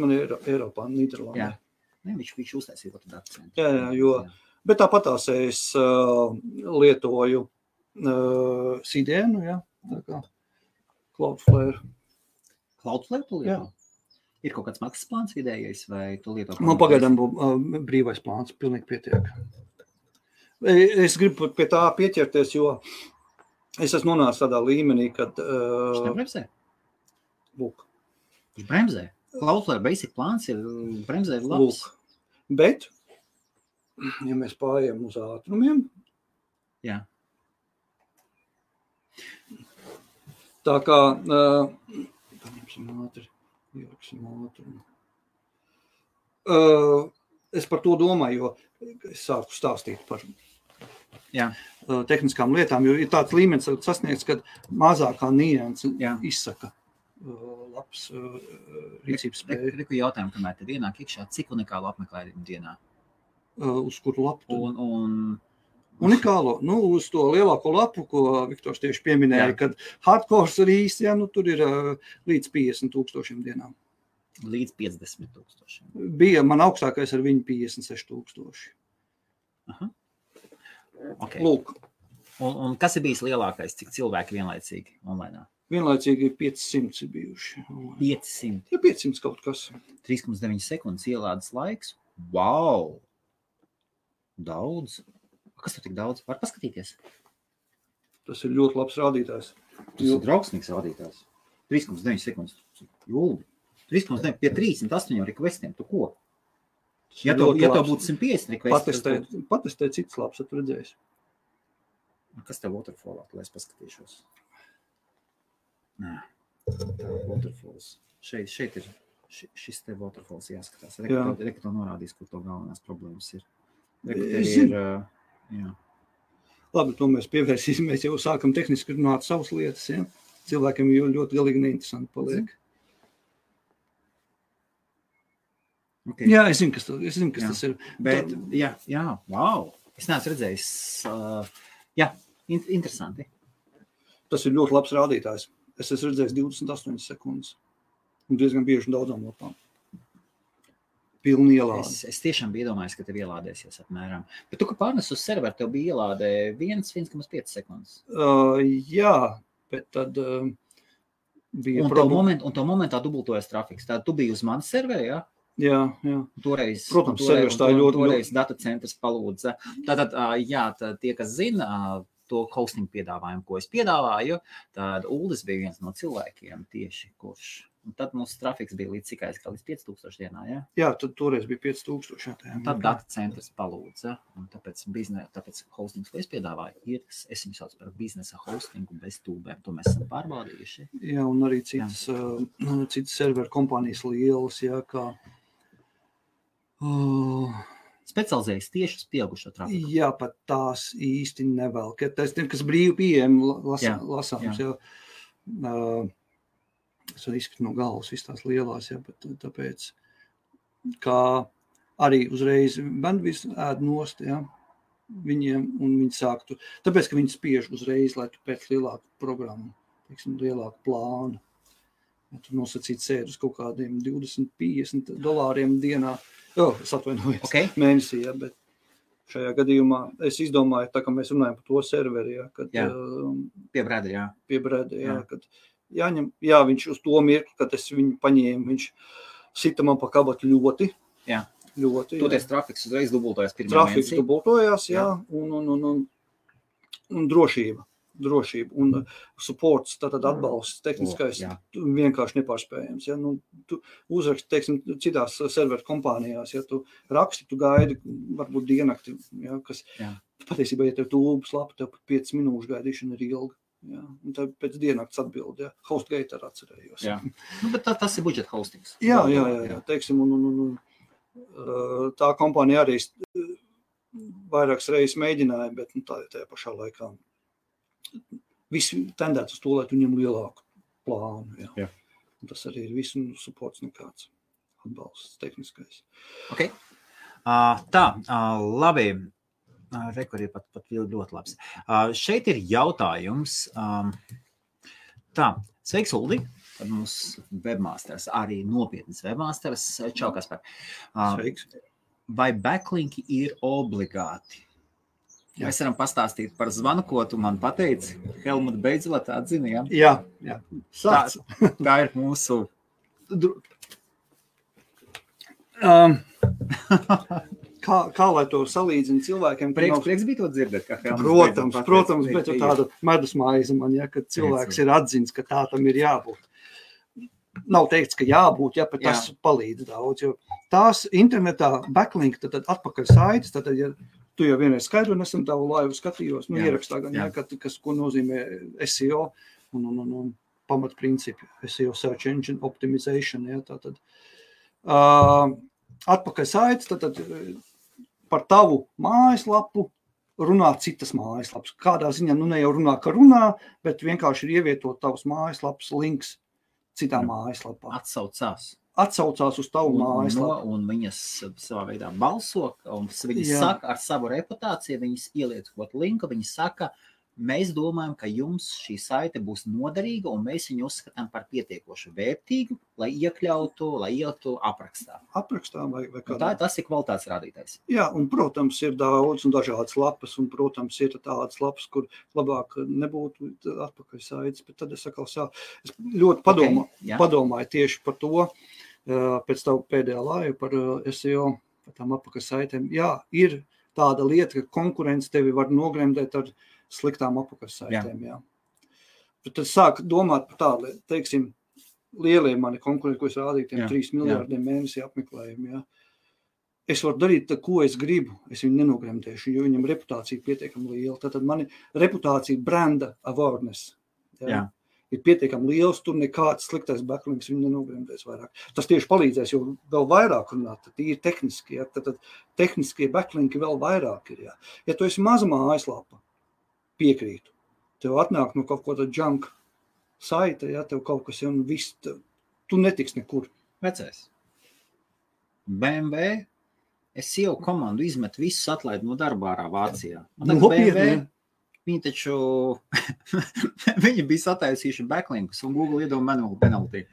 man ir Eiropā, Nīderlandē. Jā. Ne, viņš uztaisīja to akcentu. Jā, jo... Bet tāpatās es lietoju CDN, jā, tā kā Cloudflare. Cloudflare tu lieto? Jā. Ir kaut kāds maksas plāns vidējais, vai tu lieto? Man pagaidām brīvais plāns, pilnīgi pietiek. Es gribu pie tā pieķerties, jo es esmu nonācis tādā līmenī, kad... Viņš nebremzē? Lūk. Viņš bremzē? Cloudflare basic plāns ir bremzē labs? Lūk. Bet... Ja mēs pārējām uz ātrumiem, tā kā, paņemsim ātri, ieliksim ātrumu. Es par to domāju, jo es sāku stāstīt par tehniskām lietām, jo ir tāds līmenis sasniegts, kad mazākā nianse izsaka labs rīcības spēju. Reku jautājumu, kamēr te ienāk iekšā, cik unikālu apmeklējumu dienā? Uz kuru lapu? Unikālo? Uz to lielāko lapu, ko Viktors tieši pieminēja, kad hardcores ir īsti, tur ir līdz 50,000 dienām. Līdz 50,000. Bija man augstākais ar viņu 56,000. Aha. Okay. Lūk. Un kas ir bijis lielākais, cik cilvēki vienlaicīgi online? Vienlaicīgi 500 ir bijuši. 500? Ja 500 kaut kas. 3,9 sekundes ielādes laiks. Wow! Daudz. Kas tur tik daudz? Var paskatīties? Tas ir ļoti labs rādītājs. Tas ir draugsmīgs rādītājs. 3,9 sekundes. Jūldi. 3,9 pie 308 requestiem. Tu ko? Ja tev būtu 150 requesti. Patestēt citas labs, tu redzēsi. Kas tev waterfallā, lai es paskatīšos? Nē. Tā waterfalls. Šeit ir šis te waterfalls jāskatās. Reka to norādīs, kur to galvenās problēmas ir. Labi, to mēs pievērsīsimies, jau sākam tehniski runāt savas lietas, ja? Cilvēkiem jau ļoti galīgi neinteresanti paliek. Okay. Jā, es zinu, kas tas ir. Bet, wow, es neesmu redzējis, interesanti. Tas ir ļoti labs rādītājs. Es esmu redzējis 28 sekundes un diezgan bieži daudzām lapām. Pilni ielāde. Es tiešām biju iedomājis, ka tev ielādēsies apmēram. Bet tu, ka pārnes uz serveru, tev bija ielādē 1,5 sekundes. Jā, bet tad bija problēma. Un to momentā dubultojas trafiks. Tātad tu biji uz manas serveri, jā? Jā. Toreiz, servers tā ļoti. Toreiz datacentrs palūdza. Tātad, tie, kas zina to hosting piedāvājumu, ko es piedāvāju, tad Uldis bija viens no cilvēkiem tieši, kurš... Un tad mūsu trafiks bija līdz cikai, kā līdz 5,000 dienā, jā? Jā, tad toreiz bija 5,000. Tad data centrs palūdza, un tāpēc hostings, ko es piedāvāju, es viņu sauc par biznesa hostingu bez tūbēm, to mēs esam pārbaudījuši. Jā, un arī citas serveru kompānijas lielas, jā, kā... Specializējas tieši uz pieaugušo trafiku. Jā, pat tās īsti nevēl, kas brīvi pieejami lasāms, jā. Es varu izskatīt no galvas visas tās lielās, jā, bet tāpēc, kā arī uzreiz bandvis ēd nost, jā, viņiem, un viņi sāktu, tāpēc, ka viņi spiež uzreiz, lai tu pēc lielāku programmu, teiksim, lielāku plānu. Ja tu nosacīt sēdi uz kaut kādiem $20-50 dienā, es atvainojos, mēnesī, ja, bet šajā gadījumā es izdomāju, tā kā mēs runājam par to serveri, ja, kad pie Breda, kad jāņem, viņš uz to mirkli, kad es viņu paņēmu, viņš sita man pa kabatu ļoti. Toties trafiks uzreiz dubultojās pirmajā mēnesī. Trafiks dubultojās, un drošība, un supports, tātad atbalsts, tehniskais, vienkārši nepārspējams. Ja? Nu, tu uzraksti, teiksim, citās serveru kompānijās, ja tu raksti, tu gaidi, varbūt dienakti, ja, kas patiesībā, ja tev tūbas lapa, tev pat 5 minūšu gaidīšana ir ilga. Ja, un tad pēc dienakts atbild, HostGator atcerējos. Bet tas ir budžeta hostings. Jā, teiksim, un tā kompānija arī vairākas reizes mēģināja, bet tajā pašā laikā visi tendēt uz to, lai tu ņem lielāku plānu. Jā. Un tas arī ir visu supports nekāds atbalsts tehniskais. Ok. Labi. Rekur ir pat ļoti labs. Šeit ir jautājums. Sveiks, Uldi. Tad mums webmasters, arī nopietnas webmasters. Čau, Kaspar. Sveiks. Vai backlinki ir obligāti? Mēs varam pastāstīt par zvanu, ko tu man pateici. Helmut beidzot atzini, Jā. Tā ir mūsu... Kā lai to salīdzina cilvēkiem? Prieks bija to dzirdēt, kā Protams, bet tāda medus maize man, kad cilvēks ir atzins, ka tā tam ir jābūt. Nav teikts, ka jābūt, bet tas palīdz daudz, jo tās internetā backlink, tad atpakaļ saites, tad, ja tu jau vienreiz skaidro, nesen tavu laivu skatījos, ierakstā gan, kas, ko nozīmē SEO un pamatprincipi, SEO Search Engine Optimization, tātad atpakaļ saites, tad par tavu mājaslapu runā citas mājaslapas. Kādā ziņā, ne jau runā, ka runā, bet vienkārši ir ievietot tavas mājaslapas links citā mājaslapā. Atsaucās uz tavu mājaslapu. Un viņas savā veidā balso, un viņas saka ar savu reputāciju, viņas ieliec kaut linku, viņas saka, mēs domājam, ka jums šī saite būs noderīga, un mēs viņu uzskatām par pietiekoši vērtīgu, lai ieliktu aprakstā. Aprakstā vai kādā. Tas ir kvalitātes rādītājs. Jā, un, protams, ir daudz un dažādas lapas, un, protams, ir tādas lapas, kur labāk nebūtu atpakaļ saites, bet tad es ļoti padomāju tieši par to, pēc tavu pēdējā laiva par SEO, par tām atpakaļ saitēm. Jā, ir tāda lieta, ka konkurence tevi var nogremdēt ar sliktām apakaļsaitēm, Bet tad sāk domāt par tādu, teiksim, lielie mani konkurenti, ko es rādīju, tiem 3 miljārdiem mēnesī apmeklējumi, Es varu darīt, ko es gribu, es viņu nenogremdēšu, jo viņam reputācija pietiekami liela. Tātad mani reputācija, branda awareness, ir pietiekami liels, tur nekāds sliktais backlinks viņu nenogremdēs vairāk. Tas tieši palīdzēs, jo vēl vairāk runāt, tad ir tehniski, tad tehniskie backlinki vēl vairāk ir, Ja tu esi maza mājaslapa, piekrītu. Tev atnāk no kaut ko tāda junk saita, tev kaut kas un viss, tu netiks nekur. Vecais. BMW, SEO komandu izmet visus atlaid no darba ārā Vācijā. BMW, viņi taču, viņi bija sataisījuši backlinkus un Google iedod manual penalty.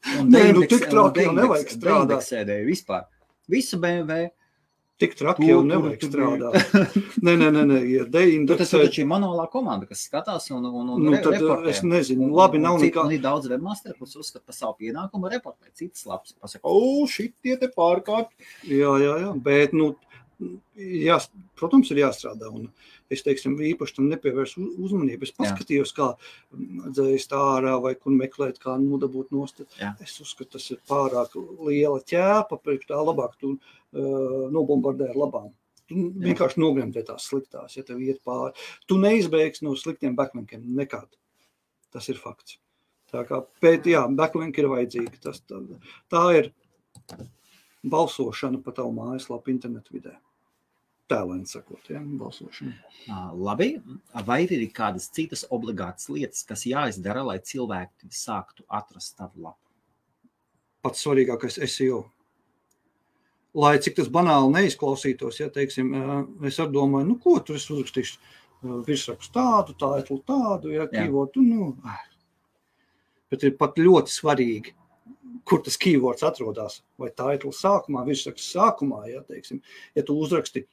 Tik traki jau nevajag strādāt. Vispār. Visu BMW. Tik traki jau nevajag strādāt. Nē, ir deindeksēt. Tas ir taču manuālā komanda, kas skatās un reportē. Es nezinu, labi nav nekā. Un ir daudz webmasteri, kas uzskata par savu pienākumu reportēt citas lapas. Pasaka, šitie te pārkārt. Jā, bet, protams, ir jāstrādā. Un es, teiksim, īpaši tam nepievērsu uzmanību. Es paskatījos, kā dzēst ārā vai kur meklēt, kā nodabūt nost. Es uzskatu, tas ir pārāk liela ķēpa, priekš tā labāk tu nobombardē ar labām. Tu vienkārši nogremdē tās sliktās, ja tev iet pāri. Tu neizbeigsi no sliktiem backlinkiem nekad. Tas ir fakts. Tā kā backlinki ir vajadzīgi. Tā ir balsošana pa tavu mājaslapu internetu vidē. Tēlēni sakot, balsošana. Labi, vai ir kādas citas obligātas lietas, kas jāizdara, lai cilvēki sāktu atrast tavu lapu? Pats svarīgākais SEO. lai cik tas banāli neizklausītos, ja, teiksim, es ar domāju, nu, ko tur es uzrakstīšu, virsrakstu tādu, tādu, ja, keywordu, nu, bet ir pat ļoti svarīgi, kur tas keywords atrodas, vai title sākumā, virsraksts sākumā, ja, teiksim, ja tu uzraksti,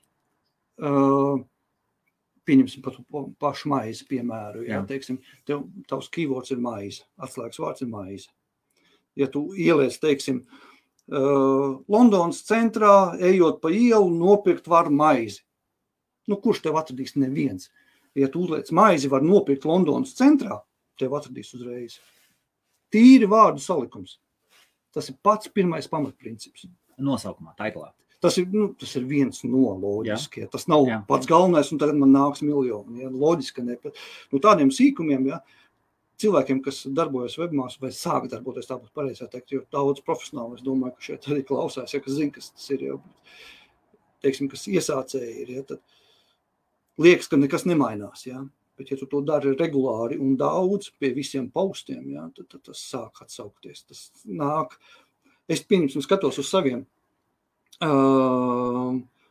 pieņemsim pat pašu maizi, piemēru, ja, teiksim, tavs keywords ir maize, atslēgas vārds ir maize. Ja tu ieliec, teiksim, Londonas centrā, ejot pa ielu, nopirkt var maizi. Nu, kurš tev atradīs? Neviens. Ja tu uzliec maizi var nopirkt Londonas centrā, tev atradīs uzreiz. Tīri vārdu salikums. Tas ir pats pirmais pamatprincips. Nosaukumā, taitlā. Tas ir viens no loģiskie. Tas nav pats galvenais, un tagad man nāks miljoni. Ja? Loģiski ne. Nu, tādiem sīkumiem, ja, cilvēkiem, kas darbojas webmās vai sāk darboties, tā būtu pareizā teikt, jo daudz profesionāli, es domāju, ka šeit arī klausās, ja, kas zina, kas tas ir, ja, teiksim, kas iesācēji ir, ja, tad liekas, ka nekas nemainās, ja, bet ja tu to dari regulāri un daudz pie visiem postiem, ja, tad tas sāk atsaukties, tas nāk. Es pieņemsim skatos uz saviem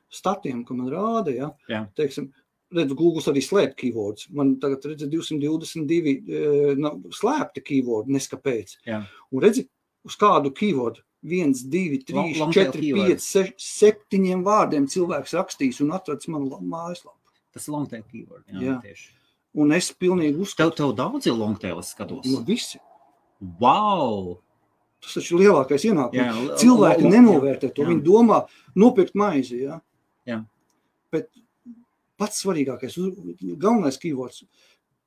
statiem, ko man rāda, ja, teiksim, redzu, Google arī slēp keywords. Man tagad redzi 222 slēpti keywordi, neskapēc. Jā. Un redzi, uz kādu keywordu 1, 2, 3, 4, 5, 6, 7 vārdiem cilvēks rakstīs un atrads manu mājaslapu. Tas ir long tail keyword. Jā. Tieši. Un es pilnīgi uzskatu. Tev daudz ir long tail, es skatos. No visi. Wow! Tas taču ir lielākais ienākums. Cilvēki nenovērtē to. Viņi domā nopirkt maizi, ja? Jā. Bet pats svarīgākais, galvenais keywords,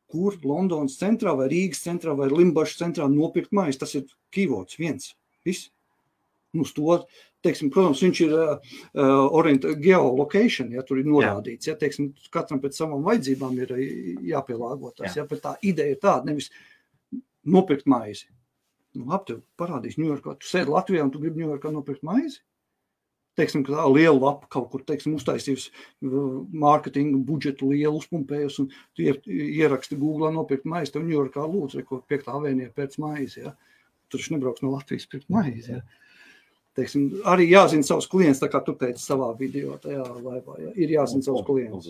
kur Londonas centrā vai Rīgas centrā vai Limbašas centrā nopirkt maizi, tas ir keywords viens. Viss. Nu, to, teiksim, protams, viņš ir geolocation, ja tur ir norādīts, ja, teiksim, katram pēc savām vajadzībām ir jāpielāgotās, ja, bet tā ideja ir tāda, nevis nopirkt maizi. Nu, labi, tev parādīs Ņujorkā, tu sēdi Latvijā un tu gribi Ņujorkā nopirkt maizi? Teiksim, ka tā liela lapa kaut kur, teiksim, uztaisījusi mārketinga budžetu lielu uzpumpējus un tu ieraksti Googlā nopirkt maizi, tev Ņujorkā lūdzu, ko 5. avēnija pēc maizi, ja. Tur viņš nebrauks no Latvijas pirkt maizi, ja. Teiksim, arī jāzina savus klients, tā kā tu teici savā video, tajā laivā, ja. Ir jāzina savus klients.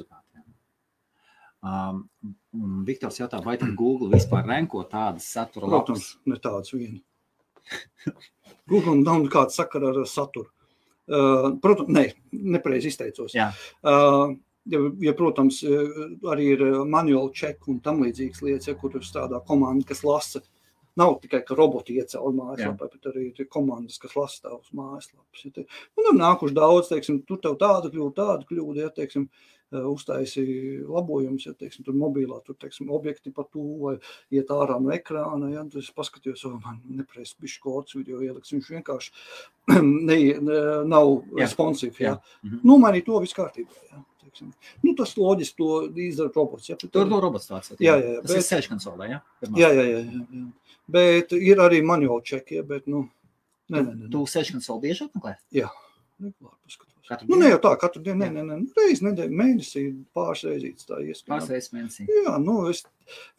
Viktors jautā, vai tad Google vispār renko tādas satura lapas? Protams, ne tādas vieni. Google nav kāda sakara ar saturu. Protams, nepareizi izteicos. Ja, protams, arī ir manual check un tam līdzīgas lietas, ja, kur strādā komanda, kas lasa. Nav tikai, ka roboti iecēl mājaslapā, bet arī ir komandas, kas lasa tavus mājaslapas. Ja, un ir nākuši daudz, teiksim, tur tev tāda kļūda, ja, teiksim, uztaisi labojumus, ja, teiksim, tur mobilā, tur, teiksim, objekti pa tuvu vai iet ārā no ekrāna, ja, tad es paskatījos, man nepareizi bišķi kods video ieliks, viņš vienkārši nav responsīvi, ja. Nomainīt to viss kārtībā, ja. Teiksim. Nu, tas loģiski to izdara robots, ja. Tur no robots tāds, jā. Tas ir search console, ja? Jā. Bet ir arī manual check, ja, bet, nu, ne. Tu search console bieži atmeklē? Jā, regulāri paskatos. Nu, ne jau tā, katru dienu, ne. Reiz nedēļu, mēnesī, pāris reizītes tā ieskatīt. Pāris reizes mēnesī. Jā, nu,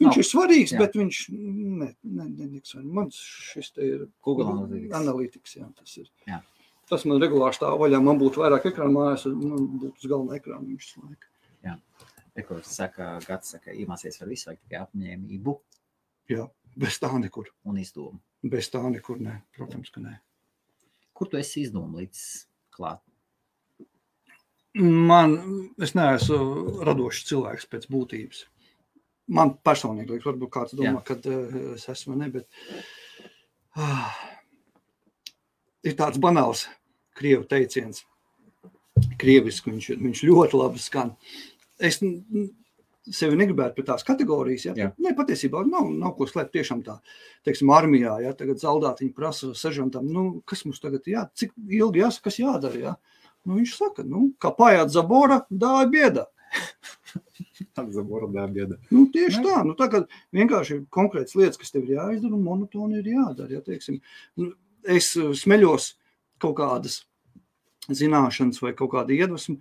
viņš ir svarīgs, bet viņš, netiks. Man šis te ir Google Analytics, jā, tas ir. Jā. Tas man regulāri stāv vaļā, man būtu vairāk ekrāna mājās, man būtu uz galvenā ekrāna viņš laika. Jā. Gats saka, iemācies ar visu, vajag tikai apņēmību. Jā, bez tā nekur. Un izdomu. Bez tā nekur, ne, protams, ka ne. Kur tu esi izdomu līdz klāt? Es neesmu radošs cilvēks pēc būtības. Man personīgi, varbūt kāds domā, kad es esmu, ne, bet ir tāds banāls krievu teiciens. Krieviski viņš ļoti labi skan. Es sevi negribētu pēc tās kategorijas, ja? Ne, patiesībā nav ko slēpt tiešām tā, teiksim, armijā, ja? Tagad zaldātiņi prasa seržantam, kas mums tagad cik ilgi jāsaka, kas jādara, ja? Viņš saka, kā pājāt zabora, dāja biedā. Zabora dāja biedā. Tieši tā, tagad vienkārši ir konkrētas lietas, kas tev ir jāizdara un monotoni ir jādara, ja, teiksim. Es smeļos kaut kādas zināšanas vai kaut kāda iedvesma,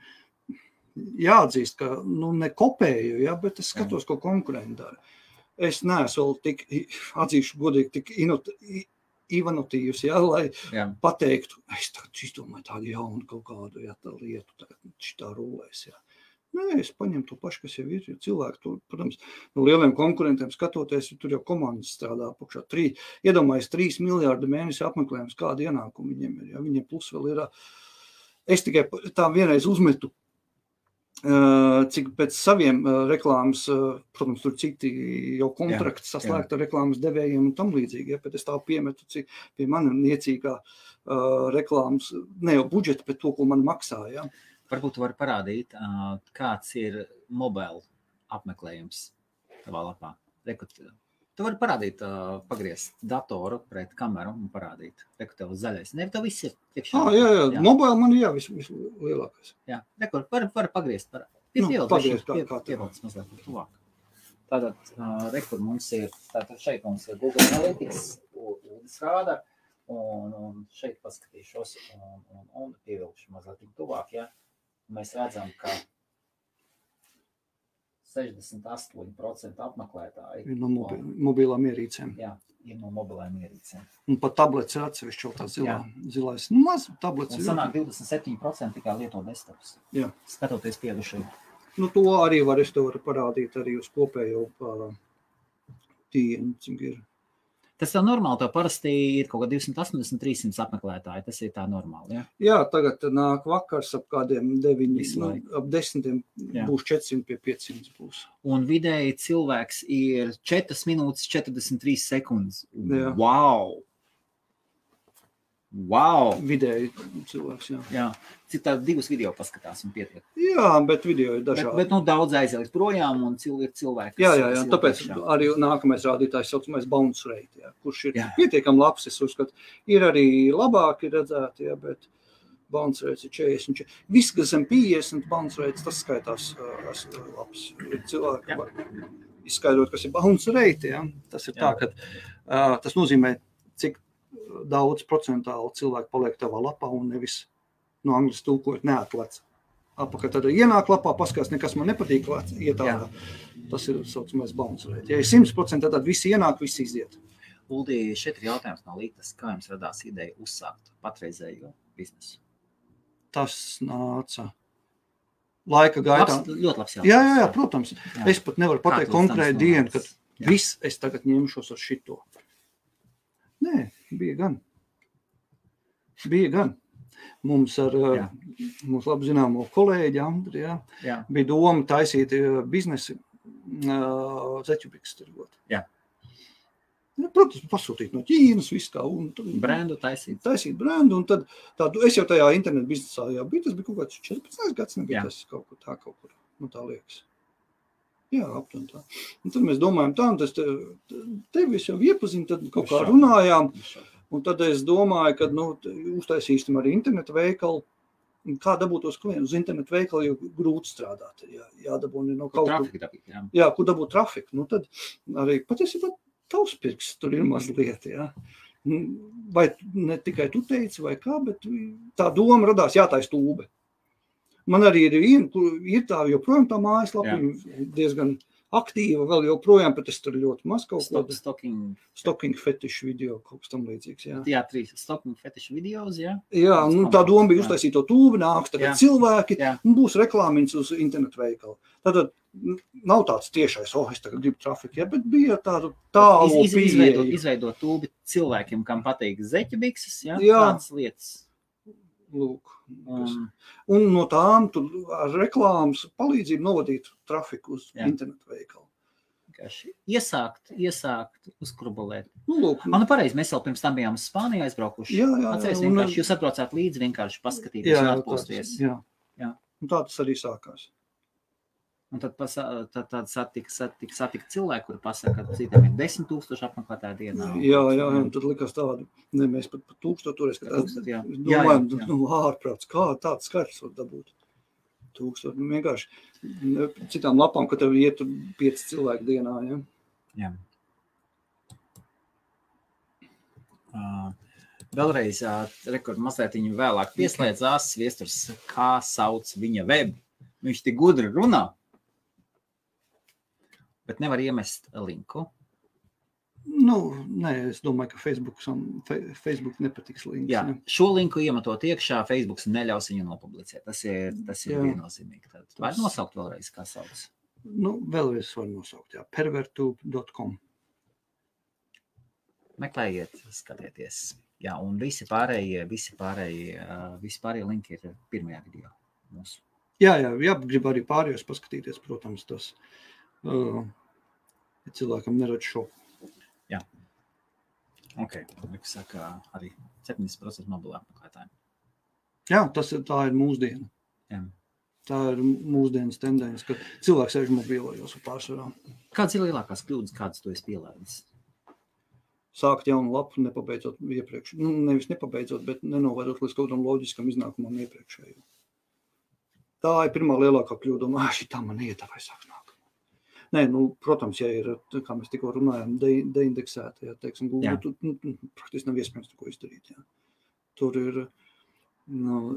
jāatzīst, ka, ne kopēju, ja, bet es skatos, ko konkurenti dara. Es neesmu vēl tik, atzīšu godīgi, tik inovatīvs, lai pateiktu, es tagad izdomāju tādu jaunu kaut kādu tā lietu, tagad šitā rulēs. Nē, es paņemu to pašu, kas jau ir, jo cilvēki, tur, protams, no lieliem konkurentiem skatoties, tur jau komandas strādā apakšā. Iedomājies 3 miljārdi mēnesi apmeklējums, kāda ienākuma viņiem ir. Viņiem plus vēl ir. Es tikai tā vienreiz uzmetu, cik pēc saviem reklāmas, protams, tur citi jau kontrakti saslēgta reklāmas devējiem un tam līdzīgi, bet es tā piemetu, cik pie mani niecīgā reklāmas, ne jau budžeta, bet to, ko man maksā, Varbūt tu vari parādīt, kāds ir mobile apmeklējums tavā lapā. Tu vari parādīt, pagriezt datoru pret kameru un parādīt. Tev zaļais. Ne, tev viss ir tiekšā. Jā. Mobile man ir vislielākais. Jā, var pagriezt. Pievilc mazliet tuvāk. Tātad, kur mums ir, šeit mums ir Google Analytics, Uldis rāda, un šeit paskatīšos un pievilkšu mazliet tuvāk, Mēs redzam, ka 68% apmeklētāji ir no mobilām ierīcēm. Jā, ir no mobilām ierīcēm. Un pat tablets ir atsevišķi tā zilais. Maz tablets. Un sanāk 27% tikai lieto desktops. Jā. Skatoties piedušai. To arī es tev varu parādīt arī uz kopējo tīnu, cik ir. Tas jau normāli, tev parasti ir kaut kā 280-300 apmeklētāji, tas ir tā normāli, Jā, tagad nāk vakars ap kādiem 9, ap 10 būs 400 pie 500 būs. Un vidēji cilvēks ir 4 minūtes 43 sekundes. Jā. Wow! Vidēji cilvēks, Jā. Cik tā 2 video paskatās un pietiek? Jā, bet video ir dažādi. Bet daudz aizies projām un ir cilvēki. Jā, tāpēc arī nākamais rādītājs saucamais bounce rate, kurš ir pietiekami labs, es uzskatu. Ir arī labāki redzēti, bet bounce rates ir 40. Viss, kas zem 50 bounce rates, tas skaitās labs. Cilvēki var izskaidrot, kas ir bounce rate, Tas ir tā, ka tas nozīmē, cik daudz procentāli cilvēki paliek tavā lapā un nevis no angļu tulkojot neatlec. Apakaļ tad ienāk lapā, paskatās, nekas man nepatīk, ietārā. Tas ir saucamais bounce rate. Ja ir 100%, tad visi ienāk, visi iziet. Uldi, šeit ir jautājums no Lītas, kā jums radās ideja uzsākt patreizējo biznesu? Tas nāca laika gaitā. Ļoti labs jautājums. Jā, protams. Es pat nevaru pateikt konkrēti dienu, kad viss es tagad ņemšos ar šito. Nē, bija gan. Mums ar mums labi zināmo kolēģi Andri, bija doma taisīt biznesi zeķubiks tirgot. Protams, pasūtīt no Ķīnas visu kā. Brendu taisīt. Taisīt brendu, un tad es jau tajā internetu biznesā biju, tas bija kaut kāds 14 gads, nebija tas kaut kur, tā liekas. Jā, aptuveni tā. Un tad mēs domājam tā, un tas tevi jau iepazinu, tad kaut kā runājām, un tad es domāju, ka, uztaisīsim arī internetu veikalu, un kā dabūt tos klientus uz internetu veikalu, jo grūti strādāt, jādabūni no kaut kur. Jā, kur dabūt trafiku, tad arī patiesībā tavs pirks tur ir mazliet, Vai ne tikai tu teici, vai kā, bet tā doma radās jātais tūbe. Man arī ir tā joprojām tā mājaslapa, diezgan aktīva, vēl joprojām, bet es tur ļoti maz kaut ko. Stocking fetišu video, kaut kas tam līdzīgs, Jā, 3 stocking fetišu videos, Jā, tā doma bija uztaisīt to tūbi, nāks tagad cilvēki, un būs reklāmiņas uz internetu veikalu. Tad nav tāds tiešais, es tagad gribu trafiku, bet bija tādu tālu pieeja. Izveidot tūbi cilvēkiem, kam patīk zeķibikses, tādas lietas. Lūk. Un no tām tur ar reklāmas palīdzību novadīt trafiku uz internetu veikalu. Iesākt, uzkrubulēt. Lūk. Pareizi, mēs jau pirms tam bijām uz Spāniju aizbraukuši. Atceries, vienkārši jūs atbraucāt līdzi, vienkārši paskatīties un atpūsties. Jā. Un tā tas arī sākās. Un tad satika cilvēki, kuri pasaka, ka citiem ir 10 000 apmeklētāju dienā. Jā, un tad likās tādu, mēs pat 1000 toreiz, domājam, ārprāts, kā tāds skaits var dabūt. 1000, vienkārši citām lapām, ka tev iet 5 cilvēku dienā, Jā. Vēlreiz, mazliet viņu vēlāk pieslēdzās Viesturs, kā sauc viņa web. Viņš tik gudri runā. Bet nevar iemest linku. Nē, es domāju, ka Facebook nepatiks links. Jā, Ne? šo linku iemetot iekšā, Facebooks neļaus viņu nopublicēt. Tas ir viennozīmīgi. Tad var nosaukt vēlreiz, kā sauc? Vēlreiz var nosaukt, jā. pervertube.com. Meklējiet, skatieties. Jā, un visi pārējie linki ir pirmajā video mūsu. Jā, grib arī pārējos paskatīties, protams, tas ja cilvēkam neredz šo. Jā. Ok, saka arī 70% mobilā apmeklētājiem. Jā, tā ir mūsdiena. Jā. Tā ir mūsdienas tendence, ka cilvēks sēž mobilajos pārsvarā. Kādas ir lielākās kļūdas, kādas tu esi pielēdis? Sākt jaunu lapu, nepabeidzot iepriekš. Nevis nepabeidzot, bet nenovērot līdz kaut kādam loģiskam iznākumam iepriekšējo. Tā ir pirmā lielākā kļūda. Šitā man iet, vai sāks nāk. Nē, protams, ja ir, kā mēs tikko runājam, deindeksēta, ja, teiksim, Google, praktiski nav iespējams neko izdarīt. Ja. Tur ir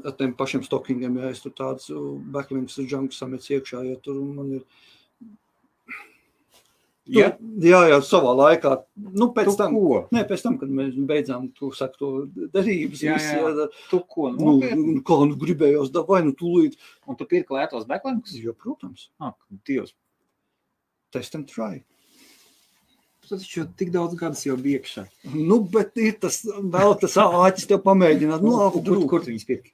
ar tiem pašiem stockingiem, ja es tur tāds backlinks junks samets iekšā, ja tur man ir... Jā, savā laikā. Pēc tam, kad mēs beidzām to derības. Tu ko? Gribējos vai tūlīt. Un tu pirki lētos backlinks? Jā, protams. Dievs. Test and try. Tas taču tik daudz gadus jau bija iekšā. Bet ir tas āķis tev pamēģināt. Kur tu viņus pirki?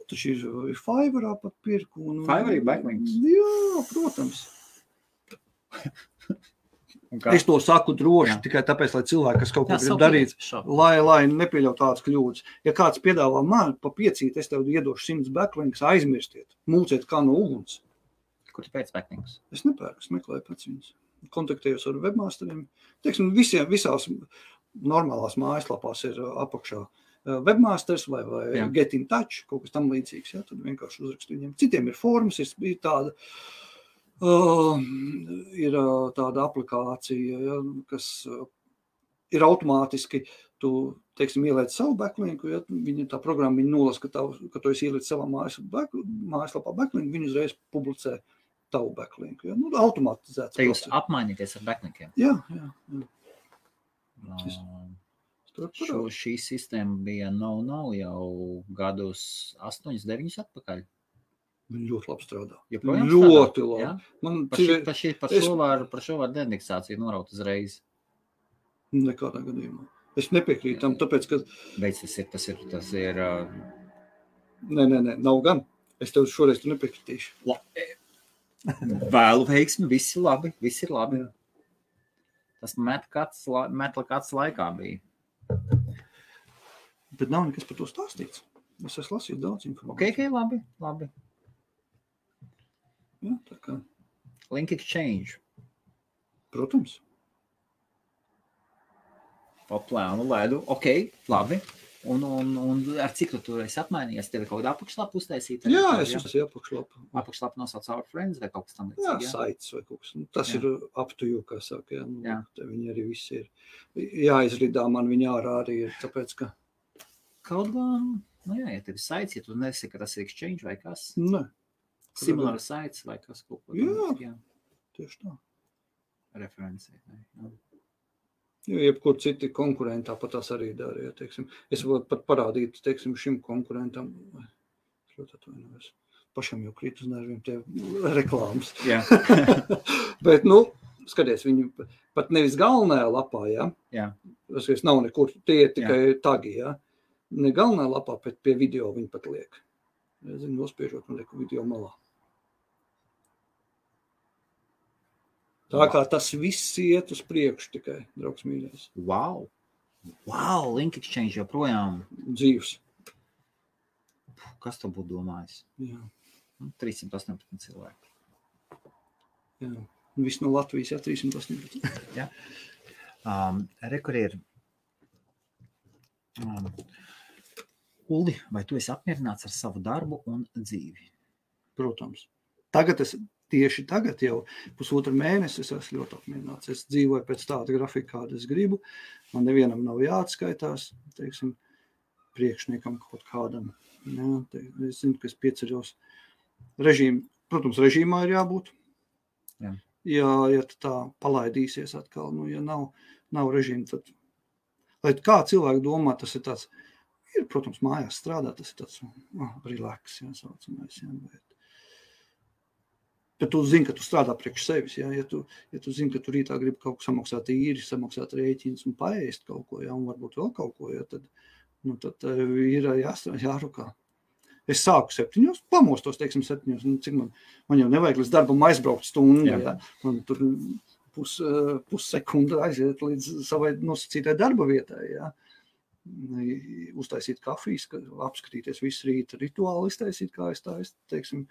Tas ir Fiverrā pat pirku. Fiverrā ir backlinks? Jā, protams. Es to saku droši, tikai tāpēc, lai cilvēki, kas kaut ko grib darīt, lai nepieļaut tādas kļūdas. Ja kāds piedāvā man pa 5, es tev iedošu 100 backlinks, aizmirstiet, mūciet kā no uguns. Kur tu pēc backlinks? Es nepērku, es meklēju pēc viņas. Kontaktējos ar webmasteriem. Teiksim, visās normālās mājaslapās ir apakšā webmasters vai get in touch, kaut kas tam līdzīgs. Ja? Tad vienkārši uzrakstu viņiem. Citiem ir formas, ir tāda... ir tāda aplikācija, ja, kas ir automātiski, tu, teiksim, ieliec savu backlinku, ja, tā programma viņa nolas, ka tu esi ieliec savā mājaslapā backlinku, viņa uzreiz publicē tavu backlinku. Ja. Automatizēts. Te jūs apmainīties ar backlinkiem? Jā. Šī sistēma bija jau gadus 8-9 atpakaļ. Viņa ļoti labi strādā. Ļoti labi. Ja? Par šo var deindeksāciju noraut uzreiz. Nekādā gadījumā. Es nepiekrītu tam, tāpēc, ka... Beidz, tas ir... Nē, nav gan. Es tev šoreiz nepiekritīšu. Vēlu veiksmi, viss ir labi. Jā. Tas metla kāds laikā bija. Bet nav nekas par to stāstīts. Es esmu lasījis daudz informāciju. Ok, labi. Jā, tā kā. Link exchange. Protams. Pa plānu lēdu. Ok, labi. Un ar cik tu tur esi apmainījies? Tev ir kaut kāda apakšlapa uztaisīta? Jā, es esmu apakšlapa. Apakšlapa nosauc Our Friends vai kaut kas tam līdzīgs? Jā, sites vai kaut kas. Tas ir up to you, kā saka. Jā. Viņi arī visi ir. Jāizridā man viņi ārā arī ir, tāpēc, ka... Kaut gan, ja tev ir sites, ja tu nesi, ka tas ir exchange vai kas? Nē. Similar sites vai kas kaut ko. Jā, tieši tā. Referencē. Jo jebkur citi konkurenti tāpat tās arī dara. Ja, teiksim. Es varu pat parādīt, teiksim, šim konkurentam. Es ļoti atvainojos. Pašam jau krīt uz nerviem tie reklāmas. Jā. Bet, skaties, viņi pat nevis galvenajā lapā, ja? Jā. Tas nav nekur, tie ir tikai tagi, ja? Ne galvenajā lapā, bet pie video viņi pat liek. Es zinu, nospiežot un lieku video malā. Tā kā tas viss iet uz priekšu tikai, draugs mīļais. Wow, link exchange joprojām. Dzīvs. Kas tu būtu domājis? Jā. 318 cilvēki. Jā, viss no Latvijas, 318. Jā. Kur ir... Uldi, vai tu esi apmierināts ar savu darbu un dzīvi? Protams. Tieši tagad jau 1,5 mēnesi es esmu ļoti apmierināts. Es dzīvoju pēc tāda grafika, kāda es gribu. Man nevienam nav jāatskaitās, teiksim, priekšniekam kaut kādam. Jā, es zinu, ka es pieceļos protams, režīmā ir jābūt. Jā. Ja tā palaidīsies atkal, ja nav nav režīma, tad, lai kā cilvēki domā, tas ir tāds, ir, protams, mājās strādā, tas ir tāds relax, saucamais, bet tu zini, ka tu strādā priekš sevis, ja tu zini, ka tu rītā gribi kaut ko samaksāt īri, samaksāt rēķins un paēst kaut ko, un varbūt vēl kaut ko, tad ir jārukā. Es sāku 7, pamostos, teiksim, 7, cik man jau nevajag līdz darbam aizbraukt stundu, man tur pussekunda aiziet līdz savai nosacītai darba vietai, uztaisīt kafijas, apskatīties visu rīta rituāli, iztaisīt, kā es teiksim,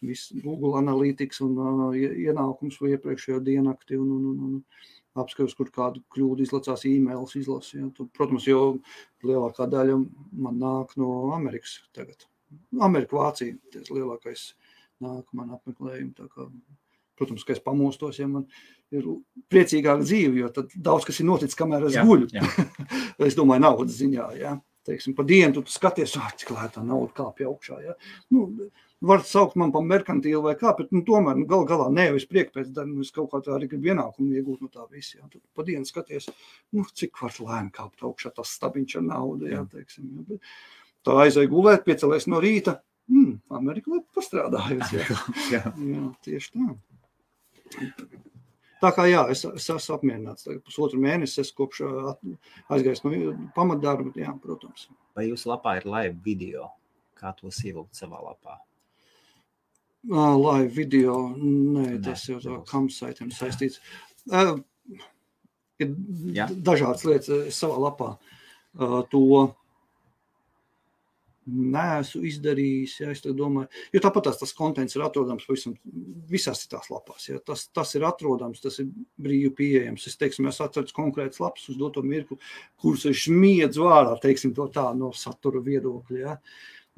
visu Google Analytics un ienākums vai iepriekšējo dienakti un apskatos, kur kādu kļūdu izlacās e-mails izlasi. Protams, jo lielākā daļa man nāk no Amerikas tagad. Amerika, Vācija, tas lielākais nāk man apmeklējumi. Tā kā, protams, ka es pamostos, ja man ir priecīgāka dzīve, jo tad daudz kas ir noticis, kamēr es guļu. Es domāju, naudas ziņā, Teiksim, pa dienu tu skaties, cik lētā nauda kāpja augšā, var saukt man pa merkantīlu vai kā, bet tomēr galā nevis priek pēc darba, es kaut kā tā arī gribu ienākumu iegūt no tā visi, Tu pa dienu skaties, cik var lēni kāpt augšā tas stabiņš ar naudu, teiksim, bet tā aizēja gulēt, piecelies no rīta, Amerika labi pastrādājusi, Jā, tieši tā. Tā kā es esmu apmierināts. Pusotru mēnesi es kopš aizgājis no pamatdarba, protams. Vai jūsu lapā ir live video? Kā tos ievilkt savā lapā? Live video, nē, tas jau tā campsite'iem saistīts. Ir dažādas lietas savā lapā. To neesmu izdarījis, es domāju, jo tāpat tas kontents ir atrodams visās citās lapās, tas ir atrodams, tas ir brīvi pieejams, es atceru konkrētas lapas uz doto mirkli, kurus es smiedzu vārā, teiksim to tā, no satura viedokļa,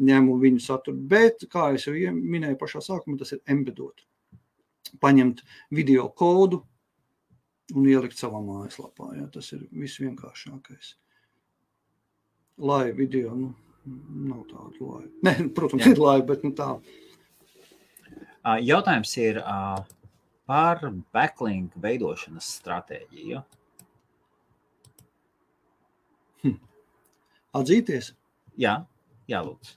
ņemu viņu saturu, bet, kā es jau minēju pašā sākumā, tas ir embedot, paņemt video kodu un ielikt savā mājaslapā, tas ir visvienkāršākais. Live video, nav tāda laiva. Ne, protams, ir laiva, bet tā. Jautājums ir par backlink veidošanas stratēģiju. Atzīties? Jā, lūdzu.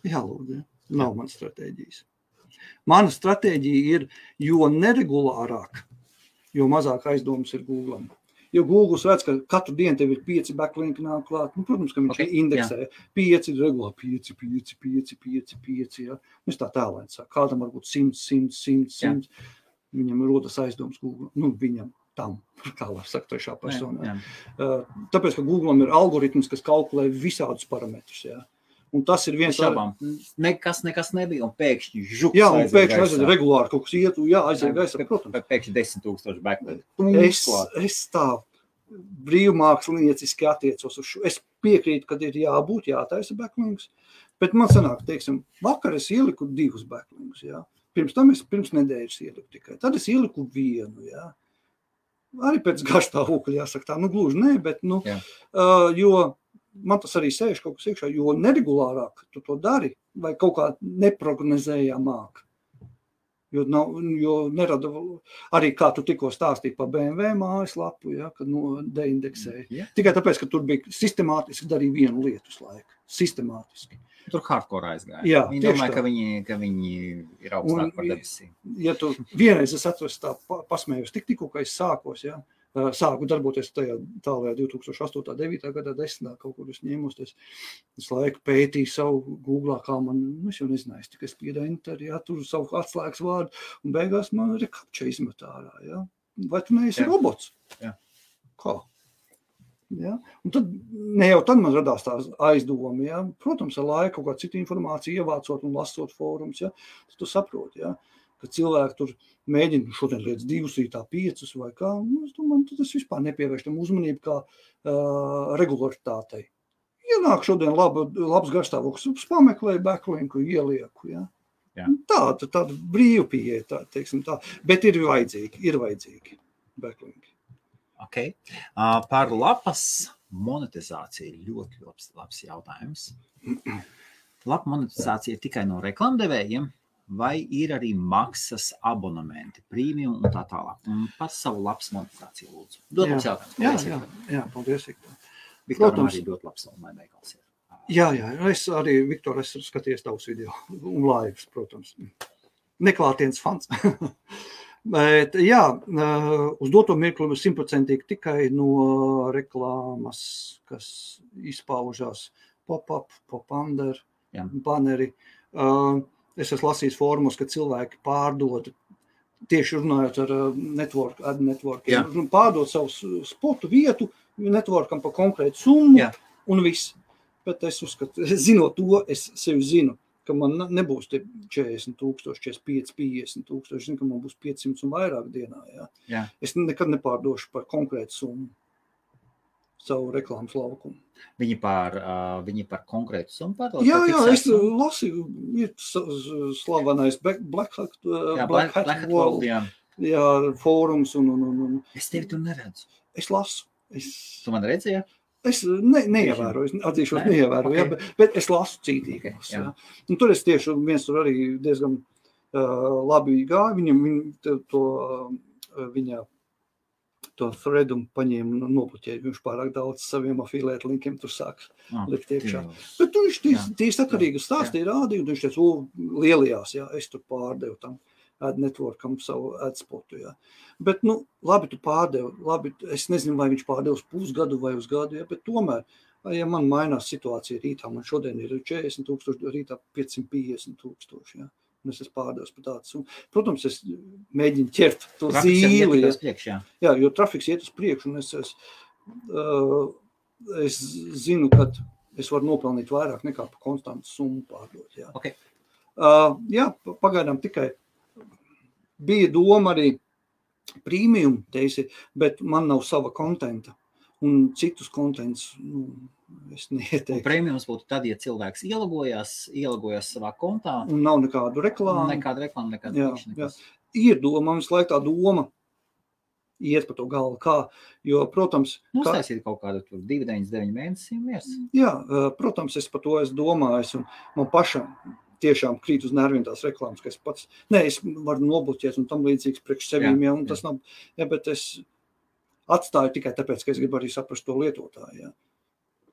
Lūdzu, nav man stratēģijas. Mana stratēģija ir, jo neregulārāk, jo mazāk aizdomas ir Googlam. Jo Google redz, ka katru dienu tev ir 5 backlinki nāk klāt. Protams, ka viņš indeksē 5, regulāri 5, Es tā tēlēni saku. Kādam varbūt 100. Viņam rodas aizdomas Google. Viņam tam, kā var sakt trešā personā. Tāpēc, ka Googlam ir algoritms, kas kalkulē visādus parametrus, Un tas ir viens Nekas nebija, un pēkšņi žuks un pēkšņi aiziet regulāri kaut kas ietu, aiziet gaisā, protams. Pēkšņi 10,000 backlink. Es tā brīvmākslinieciski attiecos uz šo. Es piekrītu, kad ir jābūt, jātaisa backlinks, bet man sanāk, teiksim, vakar es ieliku 2 backlinks, Pirms tam es pirms nedēļas ieliku tikai. Tad es ieliku 1, Arī pēc garstāvokļa jāsaka tā, gluži ne, bet, jo man tas arī sēž kaut kas iekšā, jo neregulārāk tu to dari, vai kaut kā neprognozējamāk. Jo nerada, arī kā tu tikko stāstīji par BMW mājaslapu, kad deindeksēja. Tikai tāpēc, ka tur bija sistemātiski darīja vienu lietu uz laiku. Sistemātiski. Tur hardcore aizgāja. Viņi domāja, ka viņi ir augstāk par debesīm. Ja tu vienreiz es atceros tā pasmējos tikko, ka es sākos, sāku darboties tajā tālajā 2008. 9. gadā 10. kaut kur es ņēmosties. Es laiku pētīju savu Googlā, kā man, es jau nezināju, tikai spieda enter, tur savu atslēgas vārdu, un beigās man rekapča izmet ārā, Vai tu neesi robots? Kā? Un tad, ne jau tad man radās tās aizdomi, Protams, ar laiku kaut kā citu informāciju ievācot un lasot fórums, tad tu saproti, ka cilvēki tur mēģina šodien lietas 2 rītā 5 vai kā, es domāju, tas vispār nepievērš tam uzmanību kā regularitātei. Ienāk šodien labs garstāvoklis, pameklēju backlinku, ielieku, Tāda brīva pieeja, teiksim tā, bet ir vajadzīgi backlinki. Okay. Par lapas monetizāciju ļoti labs jautājums. Lapa monetizācija ir tikai no reklamdevējiem, vai ir arī maksas abonementi, premium un tā tālāk? Un par savu labs monetizāciju lūdzu. Dod mums jautājums. Jā, paldies, Viktor. Viktoram arī dot labs un lai veikals ir. Jā, es arī, Viktor, es skaties tavus video un laivas, protams. Neklātienes fans. Bet, jā, uz doto mirkli 100% tikai no reklāmas, kas izpaužās pop-up, pop-under, baneri. Es esmu lasījis fórumos, ka cilvēki pārdod, tieši runājot ar ad networkiem, pārdod savu spotu vietu networkam par konkrētu summu un viss. Bet es uzskatu, zinot to, es sevi zinu, ka man nebūs 40,000, 45, 50,000, es zinu, ka man būs 500 un vairāk dienā. Jā. Es nekad nepārdošu par konkrētu summu savu reklāmas laukumu. Viņi par konkrētu summu pārdod? Jā, es lasīju, ir slavenais Black Hat World, fórums un... Es tevi tur neredzu. Es lasu. Tu man redzi, jā? Es neievēroju, atzīšos neievēroju, bet es lasu cītīgi. Un tur es tieši viens tur arī diezgan labi gāju, viņa to threadu paņēma un nobloķēja. Viņš pārāk daudz saviem afiliētu linkiem tur sāk likt iekšā. Bet viņš tieši sakarīgi stāstīja, rādīja, un viņš teica, lielajās, es tur pārdevu tam ad networkam savu ad spotu, Bet, labi, tu pārdevi, es nezinu, vai viņš pārdevi uz pusgadu vai uz gadu, bet tomēr, ja man mainās situācija rītā, man šodien ir 40,000, rītā 550,000, un es esmu pārdevis par tādu. Protams, es mēģinu ķert to zīli. Jā, jo trafiks iet uz priekšu, un es zinu, ka es varu nopelnīt vairāk nekā par konstantu summu pārdot. Okay. Pagaidām tikai bija doma arī premium, bet man nav sava kontenta. Un citus kontents, es neieteiktu. Un premiums būtu tad, ja cilvēks ielogojās savā kontā. Un nav nekādu reklāmu. Nekāda reklāma. Ir doma, mums laik tā doma iet pa to galvu, kā, jo, protams... Uztaisīt kaut kādu 2,9 mēnesi miers. Jā, protams, es par to esmu domājis, un man pašam tiešām krīt uz nerviem tās reklāmas, ka es pats, es varu nobloķēt un tam līdzīgs priekš sevīm, un tas nav, bet es atstāju tikai tāpēc, ka es gribu arī saprast to lietotāju,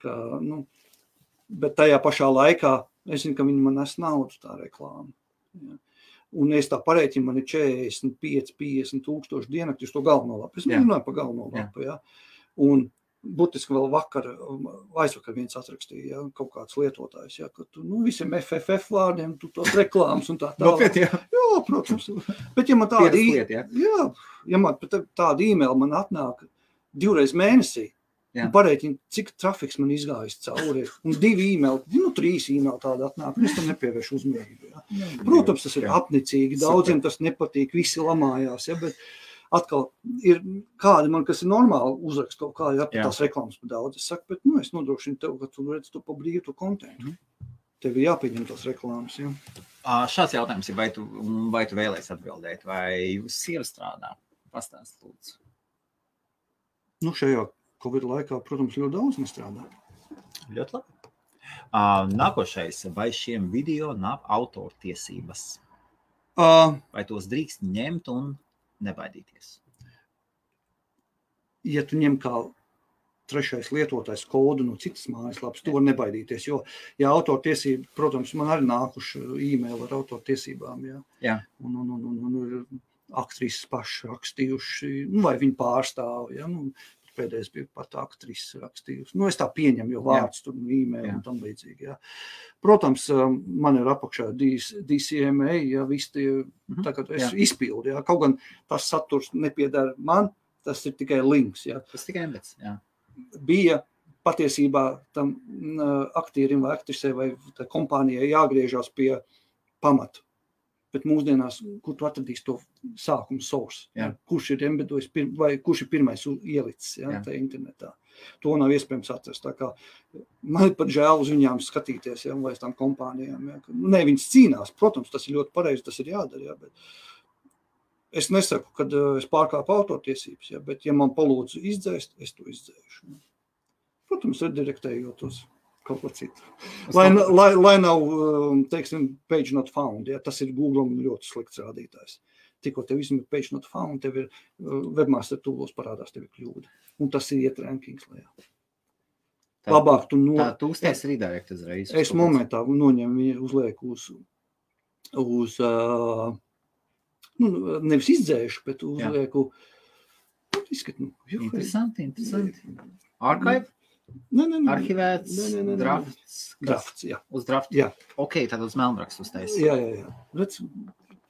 ka, bet tajā pašā laikā es zinu, ka viņi man nes naudu tā reklāma, un es tā parēķinu, man ir 45,000 dienakti uz to galveno lapu, es runāju par galveno lapu, un būtiski vēl aizvakar viens atrakstīja, kaut kāds lietotājs, ka tu, visiem FFF vārdiem, tu tos reklāmas un tā tālāk. Jā, protams. Bet ja man tāda e-mail man atnāk 2 reizes mēnesī, un parēķina, cik trafiks man izgājis cauri, un 2 e-maili, 3 e-maili tāda atnāk, un es tam nepievēršu uzmanību. Protams, tas ir apnicīgi, daudziem tas nepatīk, visi lamājās, bet atkal ir kādi man, kas ir normāli uzrakst kaut kā, tās reklāmas par daudz. Es saku, bet es nodrošinu tev, ka tu redz to pa brīvu to kontentu. Tev ir jāpieņem tās reklāmas, Šāds jautājums ir, vai tu vēlēsi atbildēt, vai jūs sieva strādā? Pastāst, lūdzu. Šajā Covid laikā, protams, ļoti daudz nestrādā. Ļoti labi. Nākošais, vai šiem video nav autortiesības? Vai tos drīkst ņemt un nebaidīties? Ja tu ņem kā trešais lietotājs kodu no citas mājaslapas, tu var nebaidīties, jo, autortiesība, protams, man arī nākuši e-maili ar autortiesībām, un aktrises paši rakstījuši, vai viņi pārstāv, pēdējais bija pat aktrises rakstījusi. Es tā pieņemu, jo vārds tur e-maili un tam līdzīgi, Protams, man ir apakšā DCMA, viss tie, tagad es izpildu, kaut gan tas saturs nepiedara man, tas ir tikai links, Tas tikai embeds, Bija patiesībā tam aktierim vai aktrisē vai kompānijai jāgriežās pie pamata. Bet mūsdienās, kur tu atradīsi to sākumu source, kurš ir embedojis vai kurš ir pirmais ielicis tā internetā. To nav iespējams atrast. Tā kā man ir pat žēl uz viņām skatīties, vai tām kompānijām. Viņas cīnās, protams, tas ir ļoti pareizi, tas ir jādara, bet es nesaku, kad es pārkāpu autortiesības, bet ja man palūdzu izdzēst, es to izdzēšu. Protams, redirektējot uz kaut ko citu. Lai nav, teiksim, page not found, ja, tas ir Google ļoti slikts rādītājs. Tikko tev izmet page not found, tev ir webmaster toolos parādās, tev ir kļūda. Un tas ir iet rankings lejā. Labāk tu Tā tūsties redirect uzreiz. Es momentā noņemu viņu uzlieku uz nevis izdzēšu, bet uzlieku Interesanti. Archive? Arhivēts, drafts, jā. Uz draftu? Jā. Ok, tad uz melnrakstu uztais. Jā. Redz,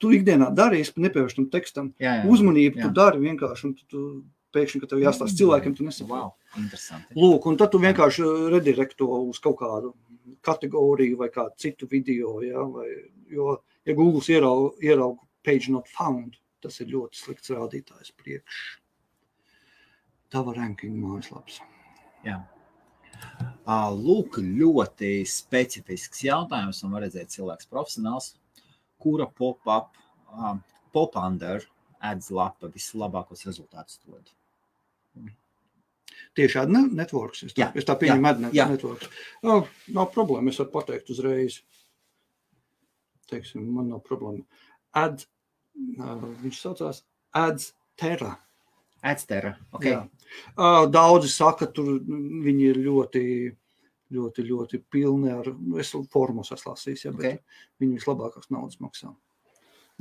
tu ikdienā dari, es nepievēršu tam tekstam. Jā. Uzmanību tu dari vienkārši, un tu pēkšņi, ka tev jāstāst cilvēkiem, tu nesaproti. Wow, interesanti. Lūk, un tad tu vienkārši redirekto uz kaut kādu kategoriju vai kādu citu video, ja, jo, ja Google ieraug page not found, tas ir ļoti slikts rādītājs priekš tava ranking mājaslaps. Jā. Lūk, ļoti specifisks jautājums, un var redzēt cilvēks profesionāls, kura pop-under ads lapa vislabākos rezultātus dod. Tieši ad networks, es tā pieņemu ad networks. Nav problēma, es varu pateikt uzreiz. Teiksim, man nav problēma. Viņš saucās AdsTerra. AdsTerra, ok. Daudzi saka, tur viņi ir ļoti pilni ar, es formos esmu lasījis, bet viņi vislabākās naudas maksā.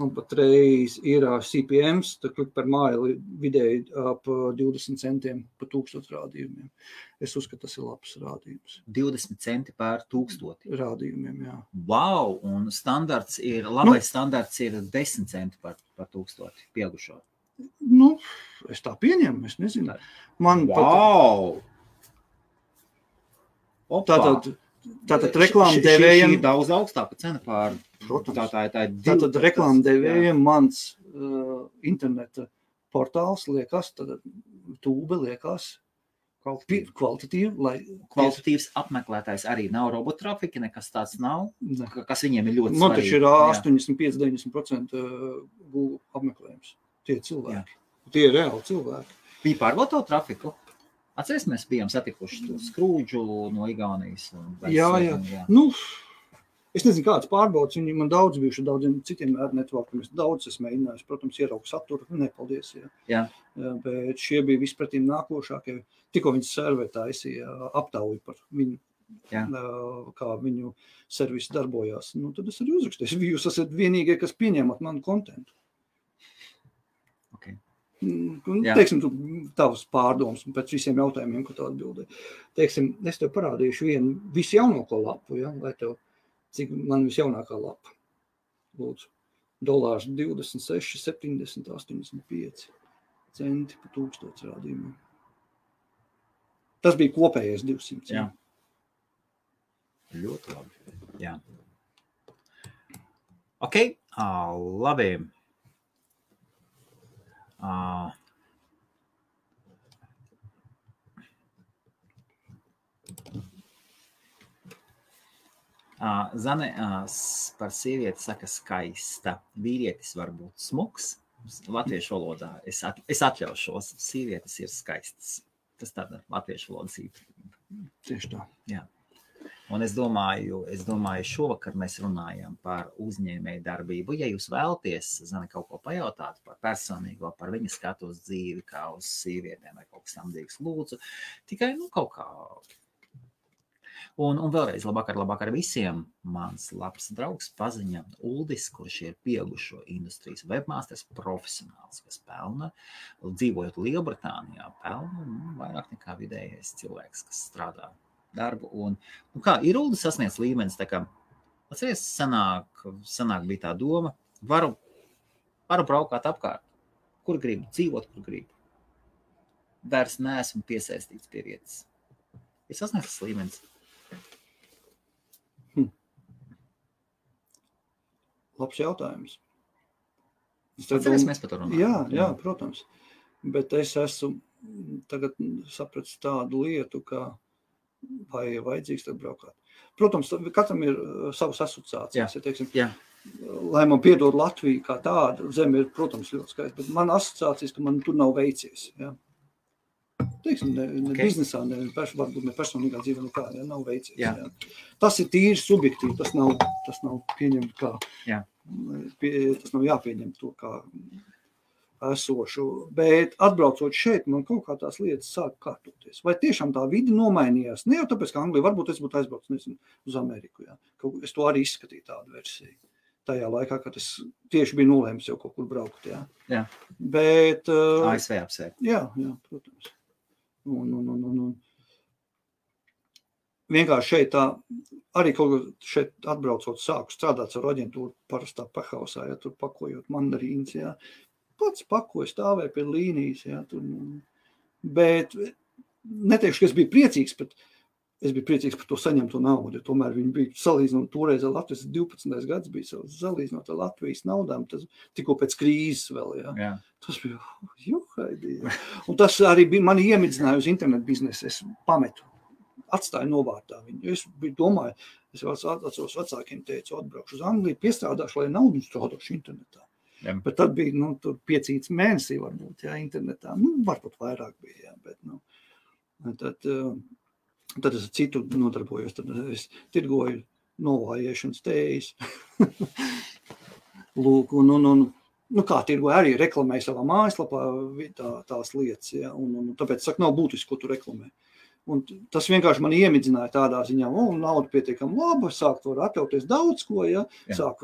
Un patreiz ir CPMs, tā klik per maili vidēji ap 20 centiem pa 1000 rādījumiem. Es uzskatu, tas ir labs rādījums. 20 centi par 1000? Rādījumiem, jā. Wow, un labais standarts ir 10 centi par 1000 pieaugušo. Es tā pieņemu, es nezinu. Wow! Tātad reklāmdevējiem... Šī ir daudz augstāka cena pār... Protams. Tātad reklāmdevējiem mans interneta portāls liekas, tad tūbe liekas kvalitatīvi. Kvalitatīvs apmeklētājs arī nav robotrafika, nekas tāds nav, kas viņiem ir ļoti svarīgi. Man taču ir 85-90% Google apmeklējums. Tie ir cilvēki. Tie ir reāli cilvēki. Viņi pārbauda tavu trafiku? Atceries, mēs bijām satikuši tur Skrūdžu no Igaunijas. Jā. Es nezinu, kāds pārbaudas. Viņi man daudz bijuši daudziem citiem networkiem. Es daudz esmu mēģinājis, protams, ieraugu saturu. Nepaldies. Jā. Bet šie bija vispretīm nākošākie. Tikko viņas servē taisīja aptauju par viņu, kā viņu servisi darbojās. Tad es arī uzrakstīju. Jūs esat vienīgie, kas pieņemat manu kontentu. Okay. Teiksim, tu tavs pārdoms pēc visiem jautājumiem, ko tu atbildēji. Teiksim, es tev parādīšu vienu visjaunāko lapu, lai tev, cik man visjaunākā lapa. Lūdzu, $26, 70, 85 centi pa 1000 rādījumiem. Tas bija kopējais 200. Jā. Ļoti labi. Jā. Ok, labi. Zane par sievieti saka skaista. Vīrietis var būt smuks. Latviešu valodā es atļaušos. Sievietes ir skaistas. Tas tāda latviešu valodas īpašība. Tieši tā. Jā. Un es domāju, šovakar mēs runājam par uzņēmēju darbību. Ja jūs vēlaties, Zane, kaut ko pajautāt par personīgo, par viņa skatu uz dzīvi, kā uz sievietēm vai kaut kas tamdīgs, lūdzu, tikai kaut kā. Un vēlreiz labāk ar visiem. Mans labs draugs paziņa Uldis, kurš ir pieaugušo industrijas webmasters profesionāls, kas pelna, dzīvojot Lielbritānijā, pelna vairāk nekā vidējais cilvēks, kas strādā darbu. Un kā ir Uldis sasniedz līmenis, tā kā, atceries, sanāk bija tā doma, varu braukāt apkārt, kur gribu, dzīvot, kur gribu. Vairs neesmu piesaistīts pie vietas. Ir sasniegts līmenis. Labs jautājums. Atceries, mēs par to runājam. Jā, protams. Bet es esmu tagad sapratis tādu lietu, ka vai vajadzīgs tad braukāt. Protams, katram ir savas asociācijas. Ja, teiksim, lai man piedod Latviju kā tāda, zeme ir, protams, ļoti skaista, bet man asociācijas, ka man tur nav veicies. Ja. teiksim, ne biznesā, varbūt ne personīgā dzīvē nekā, nav veicies. Jā. Tas ir tīri subjektīvi, tas nav pieņemt kā, tas nav jāpieņem to kā esošu, bet atbraucot šeit, man kaut kā tās lietas sāk kārtoties. Vai tiešām tā vide nomainījās? Ne jau tāpēc, ka Anglija, varbūt es būtu aizbraucis, nezinu, uz Ameriku, jā. Es to arī izskatīju tādu versiju. Tajā laikā, kad es tieši biju nolēmis jau kaut kur braukt, jā. Jā. Bet... ASV apsēr. Jā, protams. Un vienkārši šeit tā, arī kaut kā šeit atbraucot sāku strādāt ar aģentūru parastā pahausā, ja tur pakojot mandarīnas, jā. Pats pakoju, stāvēju pie līnijas, jā, tur, bet neteikšu, ka es biju priecīgs, bet es biju priecīgs par to saņemto naudu, jo tomēr viņi bija salīdzinot toreiz ar Latvijas 12. gads bija salīdzinot ar Latvijas naudām, tas tikko pēc krīzes vēl, jā. Tas bija, juhaidī, jā. Un tas arī bija, mani iemidzināja uz internetu biznesu, es pametu, atstāju novārtā viņu, es biju domāju, es atceros vecākiem teicu, atbraukšu uz Angliju, piestrādāšu, lai naudu strādāšu internetā. Jā. Bet tad bija, tur 5 mēnesī varbūt, jā, internetā, varbūt vairāk bija, jā, bet, tad es ar citu nodarbojos, tad es tirgoju novājiešanas tējas. Lūk, kā tirgoju, arī reklamēju savā mājaslapā tās lietas, jā, un tāpēc, saku, nav būtiski, ko tu reklamē. Un tas vienkārši man iemidzināja tādā ziņā, nauda pietiekam laba, sāk to atļauties daudz ko, jā. Sāk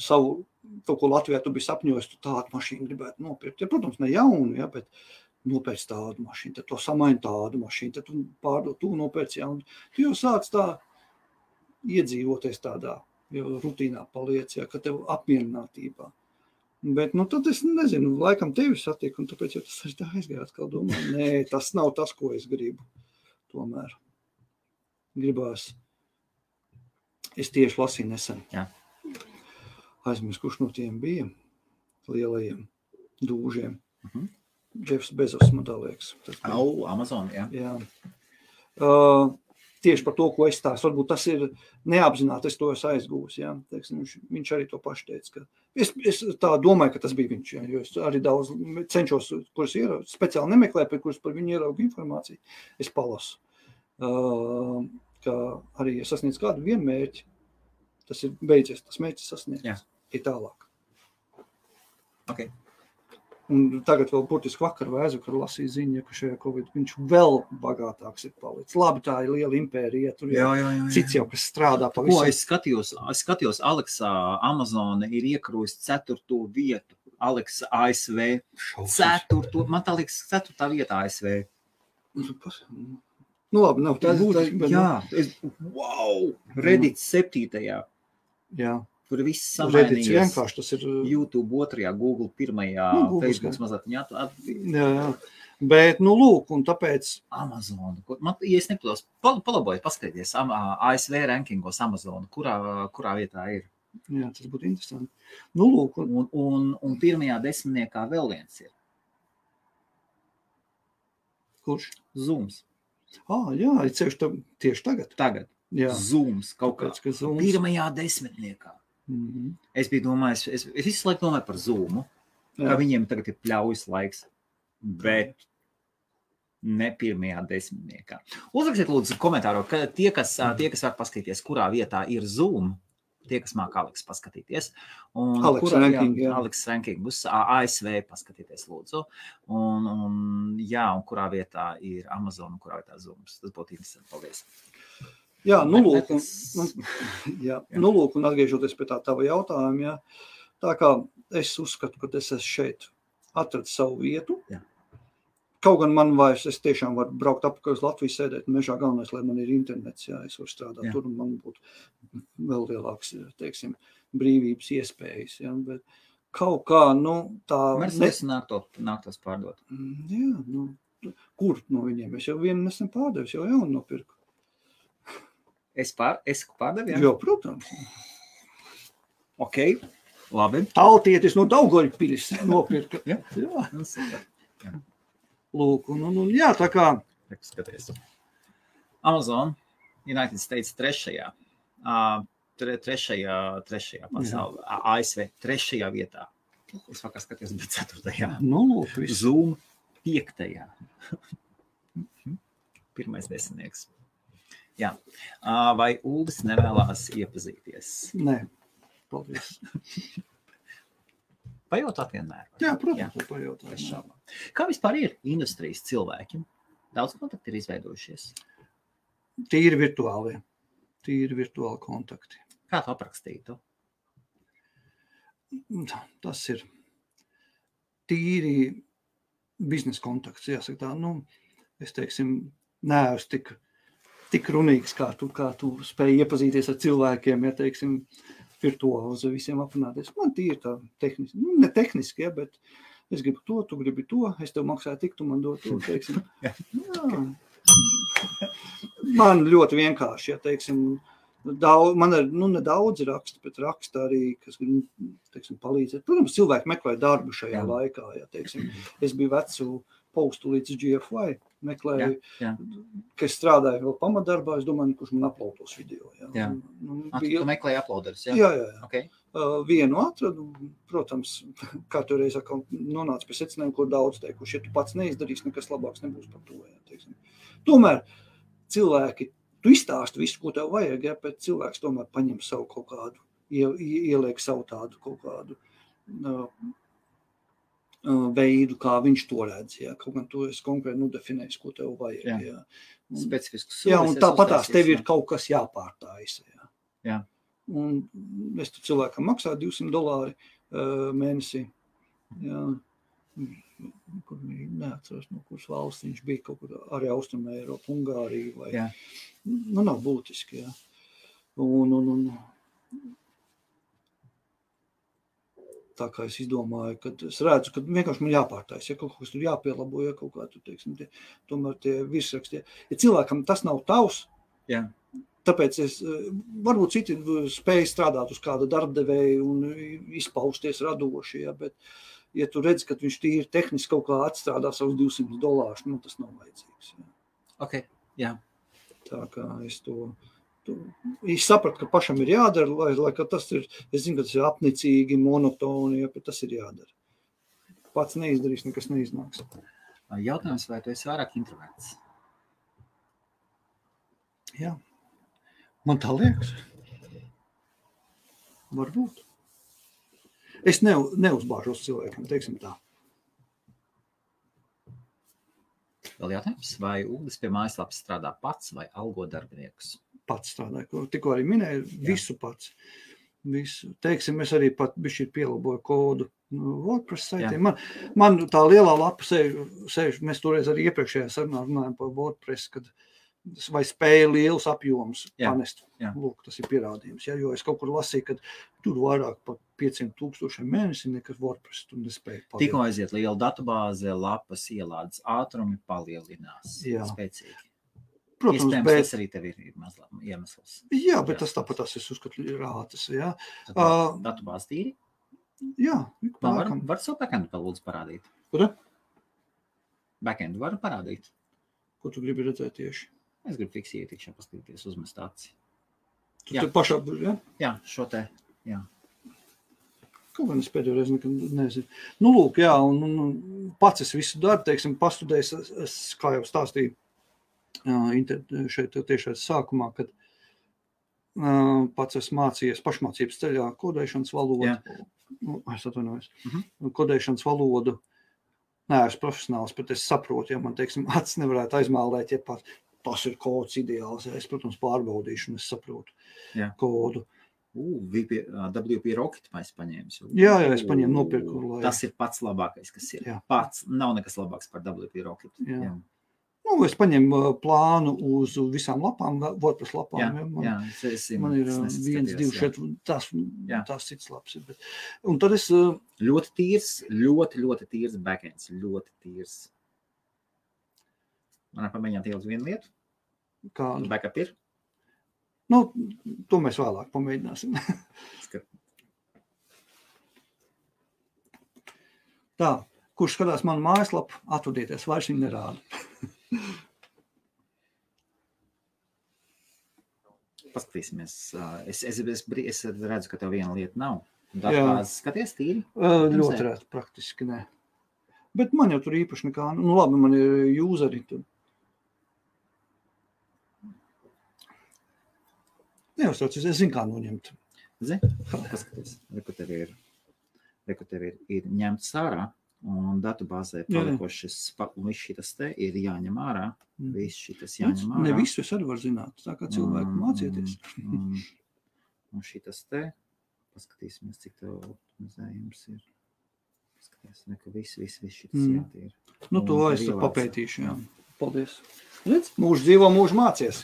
savu, kaut ko Latvijā tu biji sapņojis, tu tādu mašīnu gribētu nopirkt. Ja, protams, ne jaunu, ja, bet nopērc tādu mašīnu, tad to samaini tādu mašīnu, tad tu pārdod, tu nopērc jaunu. Tu jau sāc tā iedzīvoties tādā, jau rutīnā paliec, ja, ka tev apmierinātībā. Bet, tad es nezinu, laikam tevi satiku, un tāpēc jau tas arī tā aizgāja atkal domāju. Nē, tas nav tas, ko es gribu. Tomēr gribās. Es tieši lasīju nesen. Jā. Aizmirst, kurš no tiem bija lielajiem dūžiem. Jeffs Bezos, man tā liekas. Amazon, jā. Jā. Tieši par to, ko es stāstu. Varbūt tas ir neapzināti, es to esmu aizgūs. Jā. Teiksim, viņš arī to paši teica. Ka es tā domāju, ka tas bija viņš. Jā, jo es arī daudz cenšos, kuras speciāli nemeklēju, par kuras par viņu ieraugu informāciju. Es palasu. Ka arī ja sasniedz kādu vienu mērķi, tas ir beidzies, tas mērķis sasniedz. Jā. Ir tālāk. Okay. Un tagad vēl burtiski vakar vai aizvakar lasīju ziņu, ka šajā Covid viņš vēl bagātāks ir palicis. Labi, tā ir liela impērija, tur cits jau, kas strādā pa visu. Ko es skatījos, Aleksā Amazon ir iekarojusi 4. vietu. Aleksa ASV 4. Man tā liekas 4. vietā ASV. Labi, nav tā būtiski, bet... Jā, wow! Reddit 7. Jā. Tur viss samainījies. Vienkārši tas ir... YouTube 2, Google 1, Facebook mazliet. Jā. Bet, lūk, un tāpēc... Amazon. Ja es nepados, palabojiet, paskatīties ASV rankingos Amazon, kurā vietā ir. Jā, tas būtu interesanti. Lūk. Un 1. 10. vēl viens ir. Kurš? Zooms. Jā, tieši tagad. Tagad. Jā. Zooms kaut kā. 1. 10. Es biju domājis, es visu laiku domāju par Zoomu, ka viņiem tagad ir pļaujas laiks, bet ne 1. 10. Uzrakstiet lūdzu komentāro, ka tie, kas var paskatīties, kurā vietā ir Zoom, tie, kas māk Aleks paskatīties. Aleks ranking uz ASV paskatīties lūdzu. Un kurā vietā ir Amazon un kurā vietā Zooms. Tas būtu interesanti. Paldies. Jā, lūk, un atgriežoties pie tā tava jautājuma, jā, tā kā es uzskatu, ka es esmu šeit atradis savu vietu, kaut gan man vairs, es tiešām varu braukt apakaļ uz Latviju, sēdēt mežā, galvenais, lai man ir internets, jā, es varu strādāt tur, un man būtu vēl lielāks, teiksim, brīvības iespējas, jā, bet kaut kā, tā... Mercedes nāktos pārdot. Jā, kur no viņiem? Es jau vienu nesen pārdevis, jau jaunu nopirku. Es pārdevu, jā? Jā, protams. Ok, labi. Tautietis no Daugavpils nopirka. Jā. Lūk, un jā, tā kā... Skaties. Amazon, United States 3. pasaulē, ASV 3. vietā. Es vakar skatījos, bet 4. Lūk, Zoom 5. Pirmais desmitnieks. Jā. Vai Uldis nevēlās iepazīties? Nē, paldies. Pajautāt vienmēr. Jā, protams, pajautāt. Kā vispār ir industrijas cilvēki? Daudz kontakti ir izveidojušies? Tīri virtuāli kontakti. Kā tu aprakstītu? Tas ir tīri biznesa kontakts, jāsaka tā. Nu, es teiksim, neesmu tik runīgs, kā tu spēj iepazīties ar cilvēkiem, ja teiksim, virtuāli uz visiem aprunāties. Man tīri tā tehniski, ne tehniski, ja, bet es gribu to, tu gribi to, es tev maksāju tik, tu man dod to, teiksim. Jā. Man ļoti vienkārši, ja teiksim, man ir, nedaudz raksta, bet raksta arī, kas teiksim, palīdzēt. Protams, cilvēki meklē darbu šajā laikā, ja teiksim, es biju vecu postu līdz GFY, meklēju, ka es strādāju vēl pamatdarbā, es domāju, kurš man uploados video. Jā. Tu meklēji uploaderus, jā? Jā. Okay. Vienu atradu, protams, katru reizi nonāca pie secinājuma, kur daudz teikuši, ja tu pats neizdarīsi, nekas labāks nebūs par to. Ja, teiksim. Tomēr cilvēki, tu izstāsti visu, ko tev vajag, ja, bet cilvēks tomēr paņem savu kaut kādu, ieliek savu tādu kaut kādu veidu, kā viņš to redz. Ja. Kaut gan tu esi konkrēti nodefinējis, ko tev vajag. Ja. Specifisks solis. Jā, un tāpatās tev ir kaut kas jāpārtāisa. Ja. Jā. Un es tu cilvēkam maksāju $200 mēnesī. Ja. Kur neatceros, no kuras valsts viņš bija, kaut kur arī Austrumē Eiropa, Ungārija vai... Jā. Nav būtiski, jā. Un tā kā es izdomāju, kad es redzu, ka vienkārši man jāpārtais, ja kaut kas tur jāpielabo, ja kaut kā tu, teiksim, tomēr tie virsraksti. Ja cilvēkam tas nav tavs, tāpēc es, varbūt citi spēj strādāt uz kāda darbdevēja un izpausties radoši, ja, bet ja tu redzi, ka viņš tīri tehniski kaut kā atstrādā savus $200, tas nav vajadzīgs. Ja. Ok, jā. Tā kā es es sapratu, ka pašam ir jādara, lai ka tas ir, es zinu, ka tas ir apnicīgi, monotoni, ja, bet tas ir jādara. Pats neizdarīs, nekas neiznāks. Jautājums, vai tu esi vairāk introverts? Jā. Man tā liekas. Varbūt. Es neuzbāžos cilvēkiem, teiksim tā. Vēl jautājums, vai Uldis pie mājaslapas strādā pats vai algo darbiniekus? Pats strādāju, tikko arī minēju, visu pats. Visu. Teiksim, es arī pat bišķi pielaboju kodu WordPress saitiem. Man tā lielā lapa sēž, mēs toreiz arī iepriekšējā sarunā runājam par WordPress, kad vai spēja lielus apjomus panest. Lūk, tas ir pierādījums. Ja, jo es kaut kur lasīju, ka tur vairāk par 500,000 mēnesi nekas WordPress tu nespēja palielināt. Tikko aiziet liela datubāze, lapas ielādes ātrumi palielinās spēcīgi. Protams, iespējams, tas arī tev ir mazliet iemesls. Jā, bet tas tāpat es uzskatu ir rātas. Ja. Datubāze tīri? Jā. Var savu backendu vēl lūdzu parādīt? Kur? Backendu var parādīt? Ko tu gribi redzēt tieši? Es gribu fiks ietikšanu paskatīties, uzmest aci. Tu te pašā, ja? Jā, šo te, jā. Kaut gan es pēdējo reizi nezinu. Lūk, jā, un pats es visu darbu, teiksim, pastudējis, es, kā jau stāstīju, šeit tiešais sākumā, kad pats es mācījies pašmācības ceļā kodēšanas valodu. Es atvainojos. Kodēšanas valodu. Nē, es profesionāls, bet es saprotu, ja man, teiksim, acis nevarētu aizmālēt, ja pat tas ir kods ideāls. Ja es, protams, pārbaudīšu un es saprotu kodu. WP Rocket mēs paņēmis. Jā, es paņēmu nopirku. Tas ir pats labākais, kas ir. Pats nav nekas labāks par WP Rocket. Jā. Es paņēmu plānu uz visām lapām, WordPress lapām. Man ir 1, 2, šeit, tās cits laps. Un tad es... Ļoti tīrs, ļoti tīrs backends, ļoti tīrs. Man pamēģināt ielikt vienu lietu? Kādu? Backup ir? To mēs vēlāk pamēģināsim. Tā, kurš skatās manu mājaslapu, atvadieties, vairs viņu nerāda. Paskatīsimies. Es redzu, ka tev viena lieta nav. Datubāzes skaties tīri? Ļoti rēt, praktiski ne. Bet man jau tur īpaši nekā, nu labi, man ir useri tur. Neuztraucies, es zinu, kā noņemt. Zini, paskaties, reku tev ir ņemts ārā, un datubāzē palikošas, un viss šitas te ir jāņem ārā. Viss šitas jāņem ārā. Ne visu es arī varu zināt, tā kā cilvēku mācieties. Un šitas te, paskatīsimies, cik tev optimizējums ir. Paskaties, ka viss šitas jātīra. Nu, to es papētīšu, jā. Paldies. Redz, mūžu dzīvo, mūžu mācies.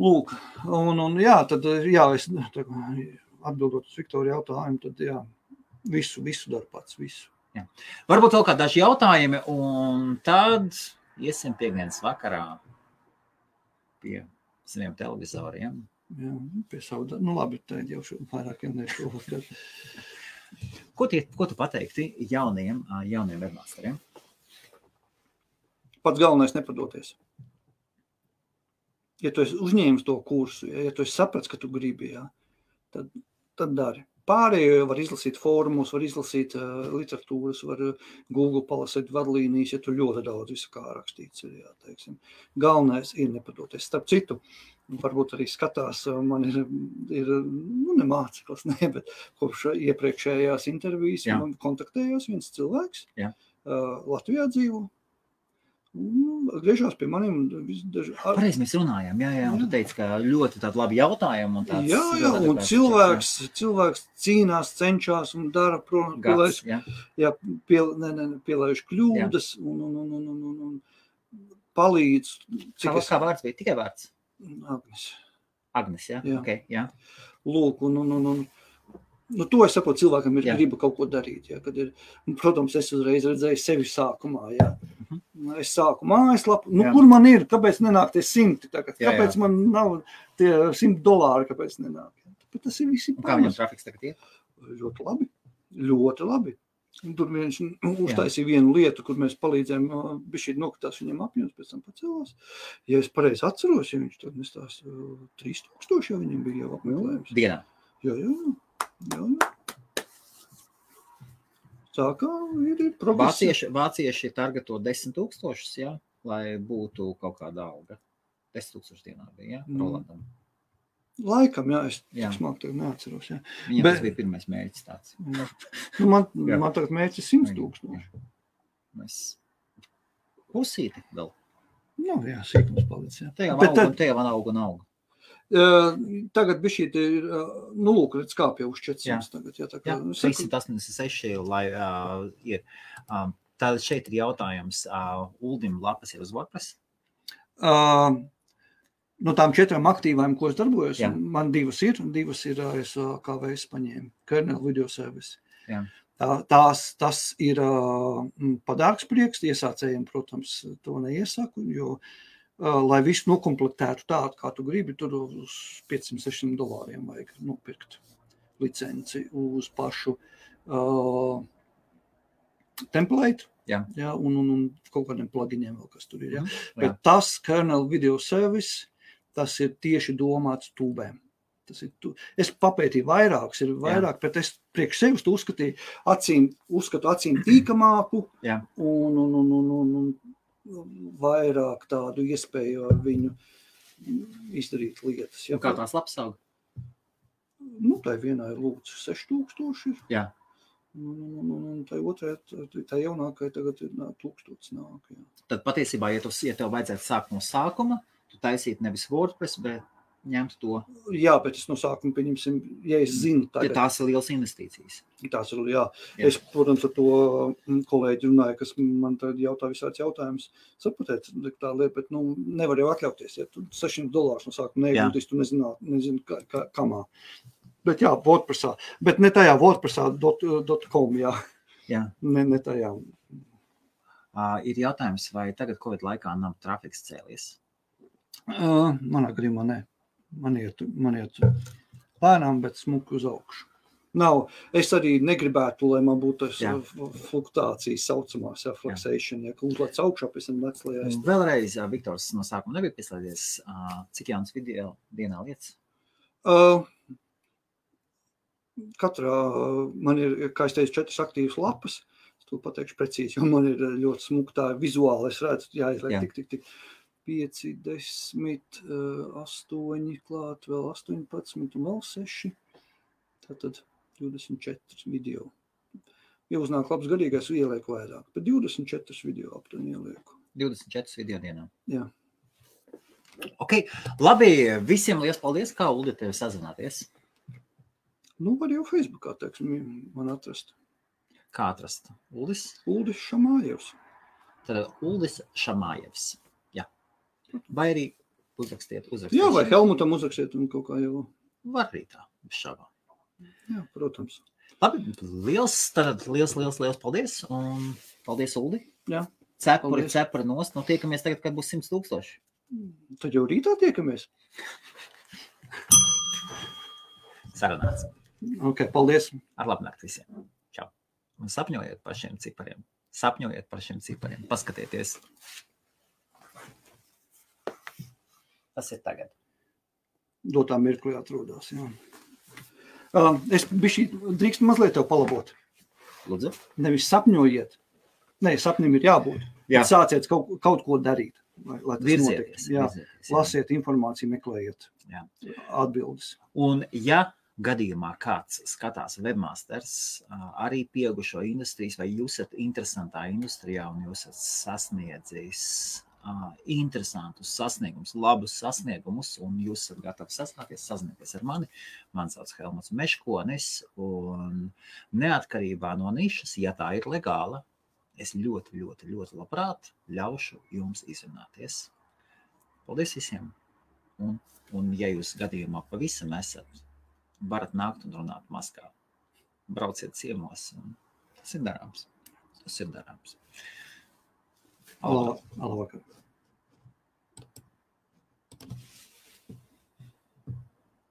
Lūk, un jā, tad, jā, es atbildot uz Viktoru jautājumu, tad jā, visu daru pats, visu. Jā. Varbūt vēl kā daži jautājumi, un tad iesim piekdienas vakarā pie saviem televizoriem. Jā, pie savu, nu labi, tā jau vairākiem nešovakar. Ko tu pateikti jauniem webmasteriem? Pats galvenais nepadoties. Ja tu esi uzņēmis to kursu, ja tu esi saprats, ka tu gribi, jā, tad dari. Pārējo var izlasīt fórumus, var izlasīt literatūras, var Google palasīt vadlīnijas, ja tu ļoti daudz visu kā rakstīts ir, jā, teiksim. Galvenais ir nepadoties. Starp citu, varbūt arī skatās, man ir ne māceklis, bet kopš iepriekšējās intervijas man kontaktējās viens cilvēks, Latvijā dzīvo. Griežās pie maniem. Pareizi mēs runājām, jā, un tu teici, ka ļoti tādi labi jautājumi. Un tāds, jā, un cilvēks cīnās, cenšās un dara, pielaiž kļūdas un palīdz. Kā vārds bija? Tikai vārds? Agnes, jā? Okay, jā. Lūk, nu, to es saprotu, cilvēkam ir griba kaut ko darīt. Jā, kad ir, protams, es uzreiz redzēju sevi sākumā. Jā. Es sāku mājaslapu. Nu, kur man ir? Kāpēc nenāk tie 100? Kāpēc man nav tie $100? Kāpēc nenāk? Bet tas ir visi pamats. Kā viņam trafiks tagad ir? Ļoti labi. Ļoti labi. Un tur viņš uztaisīja vienu lietu, kur mēs palīdzējām, bišķīt nokritās viņam apjoms, pēc tam pacēlās. Ja es pareizi atceros, ja viņš tad nestās 3000, ja viņam bija jau apmeklējums. Dienā? Jā. Tā kā ir progress. Vācieši targeto 10,000, jā, lai būtu kaut kāda alga. 10,000 dienā bija, jā, Rolandam. Laikam, jā, es tik smāk tagad neatceros, jā. Viņam tas bija pirmais mērķis tāds. Man tagad mērķis 100,000. Mēs pusīti vēl. Nu, jā, sīkums palic, jā. Te jau auga. Tagad bišķīt ir, nu lūk, redz kāpja uz 400 tagad. Jā, 386, lai ir. Tātad šeit ir jautājums, Uldim lapas ir uz WordPress? No tām 4 aktīvām, ko es darbojos, man divas ir ASKVS paņēma, Kernel Video Service. Jā. Tas ir padārgs prieks, iesācējiem, protams, to neiesaku, jo lai visu nokomplektētu tādu, kā tu gribi, tur uz $500-600 vajag nopirkt licenci uz pašu template, un kaut kādiem pluginiem vēl, kas tur ir. Ja? Bet tas Kernel Video Service, tas ir tieši domāts tūbēm. Es papētīju vairākus, ir vairāk, bet es priekš sevis uzskatu acīm tīkamāku un vairāk tādu iespēju ar viņu izdarīt lietas. Ja? Kā tās lapas aug? Nu, tai vienā ir lūdzu 6,000. Jā. Un tai otrai, tai jaunākai tagad ir 1000 nāk. Jā. Tad patiesībā, ja tev vajadzētu sākt no sākuma, tu taisītu nevis WordPress, bet ņemt to. Jā, bet es no sākuma pieņemsim, ja es zinu tagad. Ja tās ir lielas investīcijas. Tās ir, jā. Es, protams, ar to kolēģi runāju, kas man tagad jautā visāds jautājums. Sapratēt tā lieta, bet nevar jau atļauties. Ja tu $600 no sākuma neieguldīs, tu nezinu kamā. Bet jā, WordPressā. Bet ne tajā WordPressā.com, jā. Ne tajā. Ir jautājums, vai tagad Covid laikā nav trafiks cēlies? Manā gadījumā ne. Man iet lēnām, bet smuki uz augšu. Es arī negribētu, lai man būtu fluktuācijas saucamās, fluxation, ka uzlēc augšā, pēc tam lec lejā. Vēlreiz, Viktors no sākuma nebija pieslēdzies, cik jaunas video dienā lietas? Katrā, man ir, kā es teicu, 4 aktīvas lapas, to pateikšu precīzi, jo man ir ļoti smuktā vizuāli, es redzu, jāizliek tik. 5, 10, 8 klāt, vēl 18 un vēl 6. Tātad 24 video. Ja uznāk labs garīgais, ielieku vairāk, bet 24 video aptuveni ielieku. 24 video dienā. Jā. Ok, labi, visiem liels paldies, kā Uldi tevi sazināties? Nu, var jau Facebookā, teiksim, man atrast. Kā atrast? Uldis Šamājevs. Tad Uldis Šamājevs. Jā. Vai arī uzrakstiet. Jā, vai Helmutam uzrakstiet un kaut kā jau. Var arī tā, šāvā. Jā, protams. Labi, liels paldies. Un paldies, Uldi. Jā. Cepuri nost. Nu, tiekamies tagad, kad būs 100,000. Tad jau rītā tiekamies. Sarunāts. Ok, paldies. Ar labnakt visiem. Čau. Un sapņojiet par šiem cipariem. Paskatieties. Tas ir tagad. Dotā mirklī atrodās, jā. Es drīkst mazliet tev palabot. Lūdzu. Nevis sapņojiet. Nē, sapnim ir jābūt. Jā. Sāciet kaut ko darīt, lai tas Virzieties. Lasiet informāciju, meklējiet atbildes. Un ja gadījumā kāds skatās webmasters, arī pieaugušo industrijas, vai jūs esat interesantā industrijā un jūs esat sasniedzis interesantus sasniegumus, labus sasniegumus, un jūs esat gatavi sazināties ar mani. Man sauc Helmuts Meškonis, un neatkarībā no nišas, ja tā ir legāla, es ļoti labprāt ļaušu jums izrunāties. Paldies visiem! Un ja jūs gadījumā pavisam esat, varat nākt un runāt maskā. Brauciet ciemos, un tas ir darāms. Labvakar.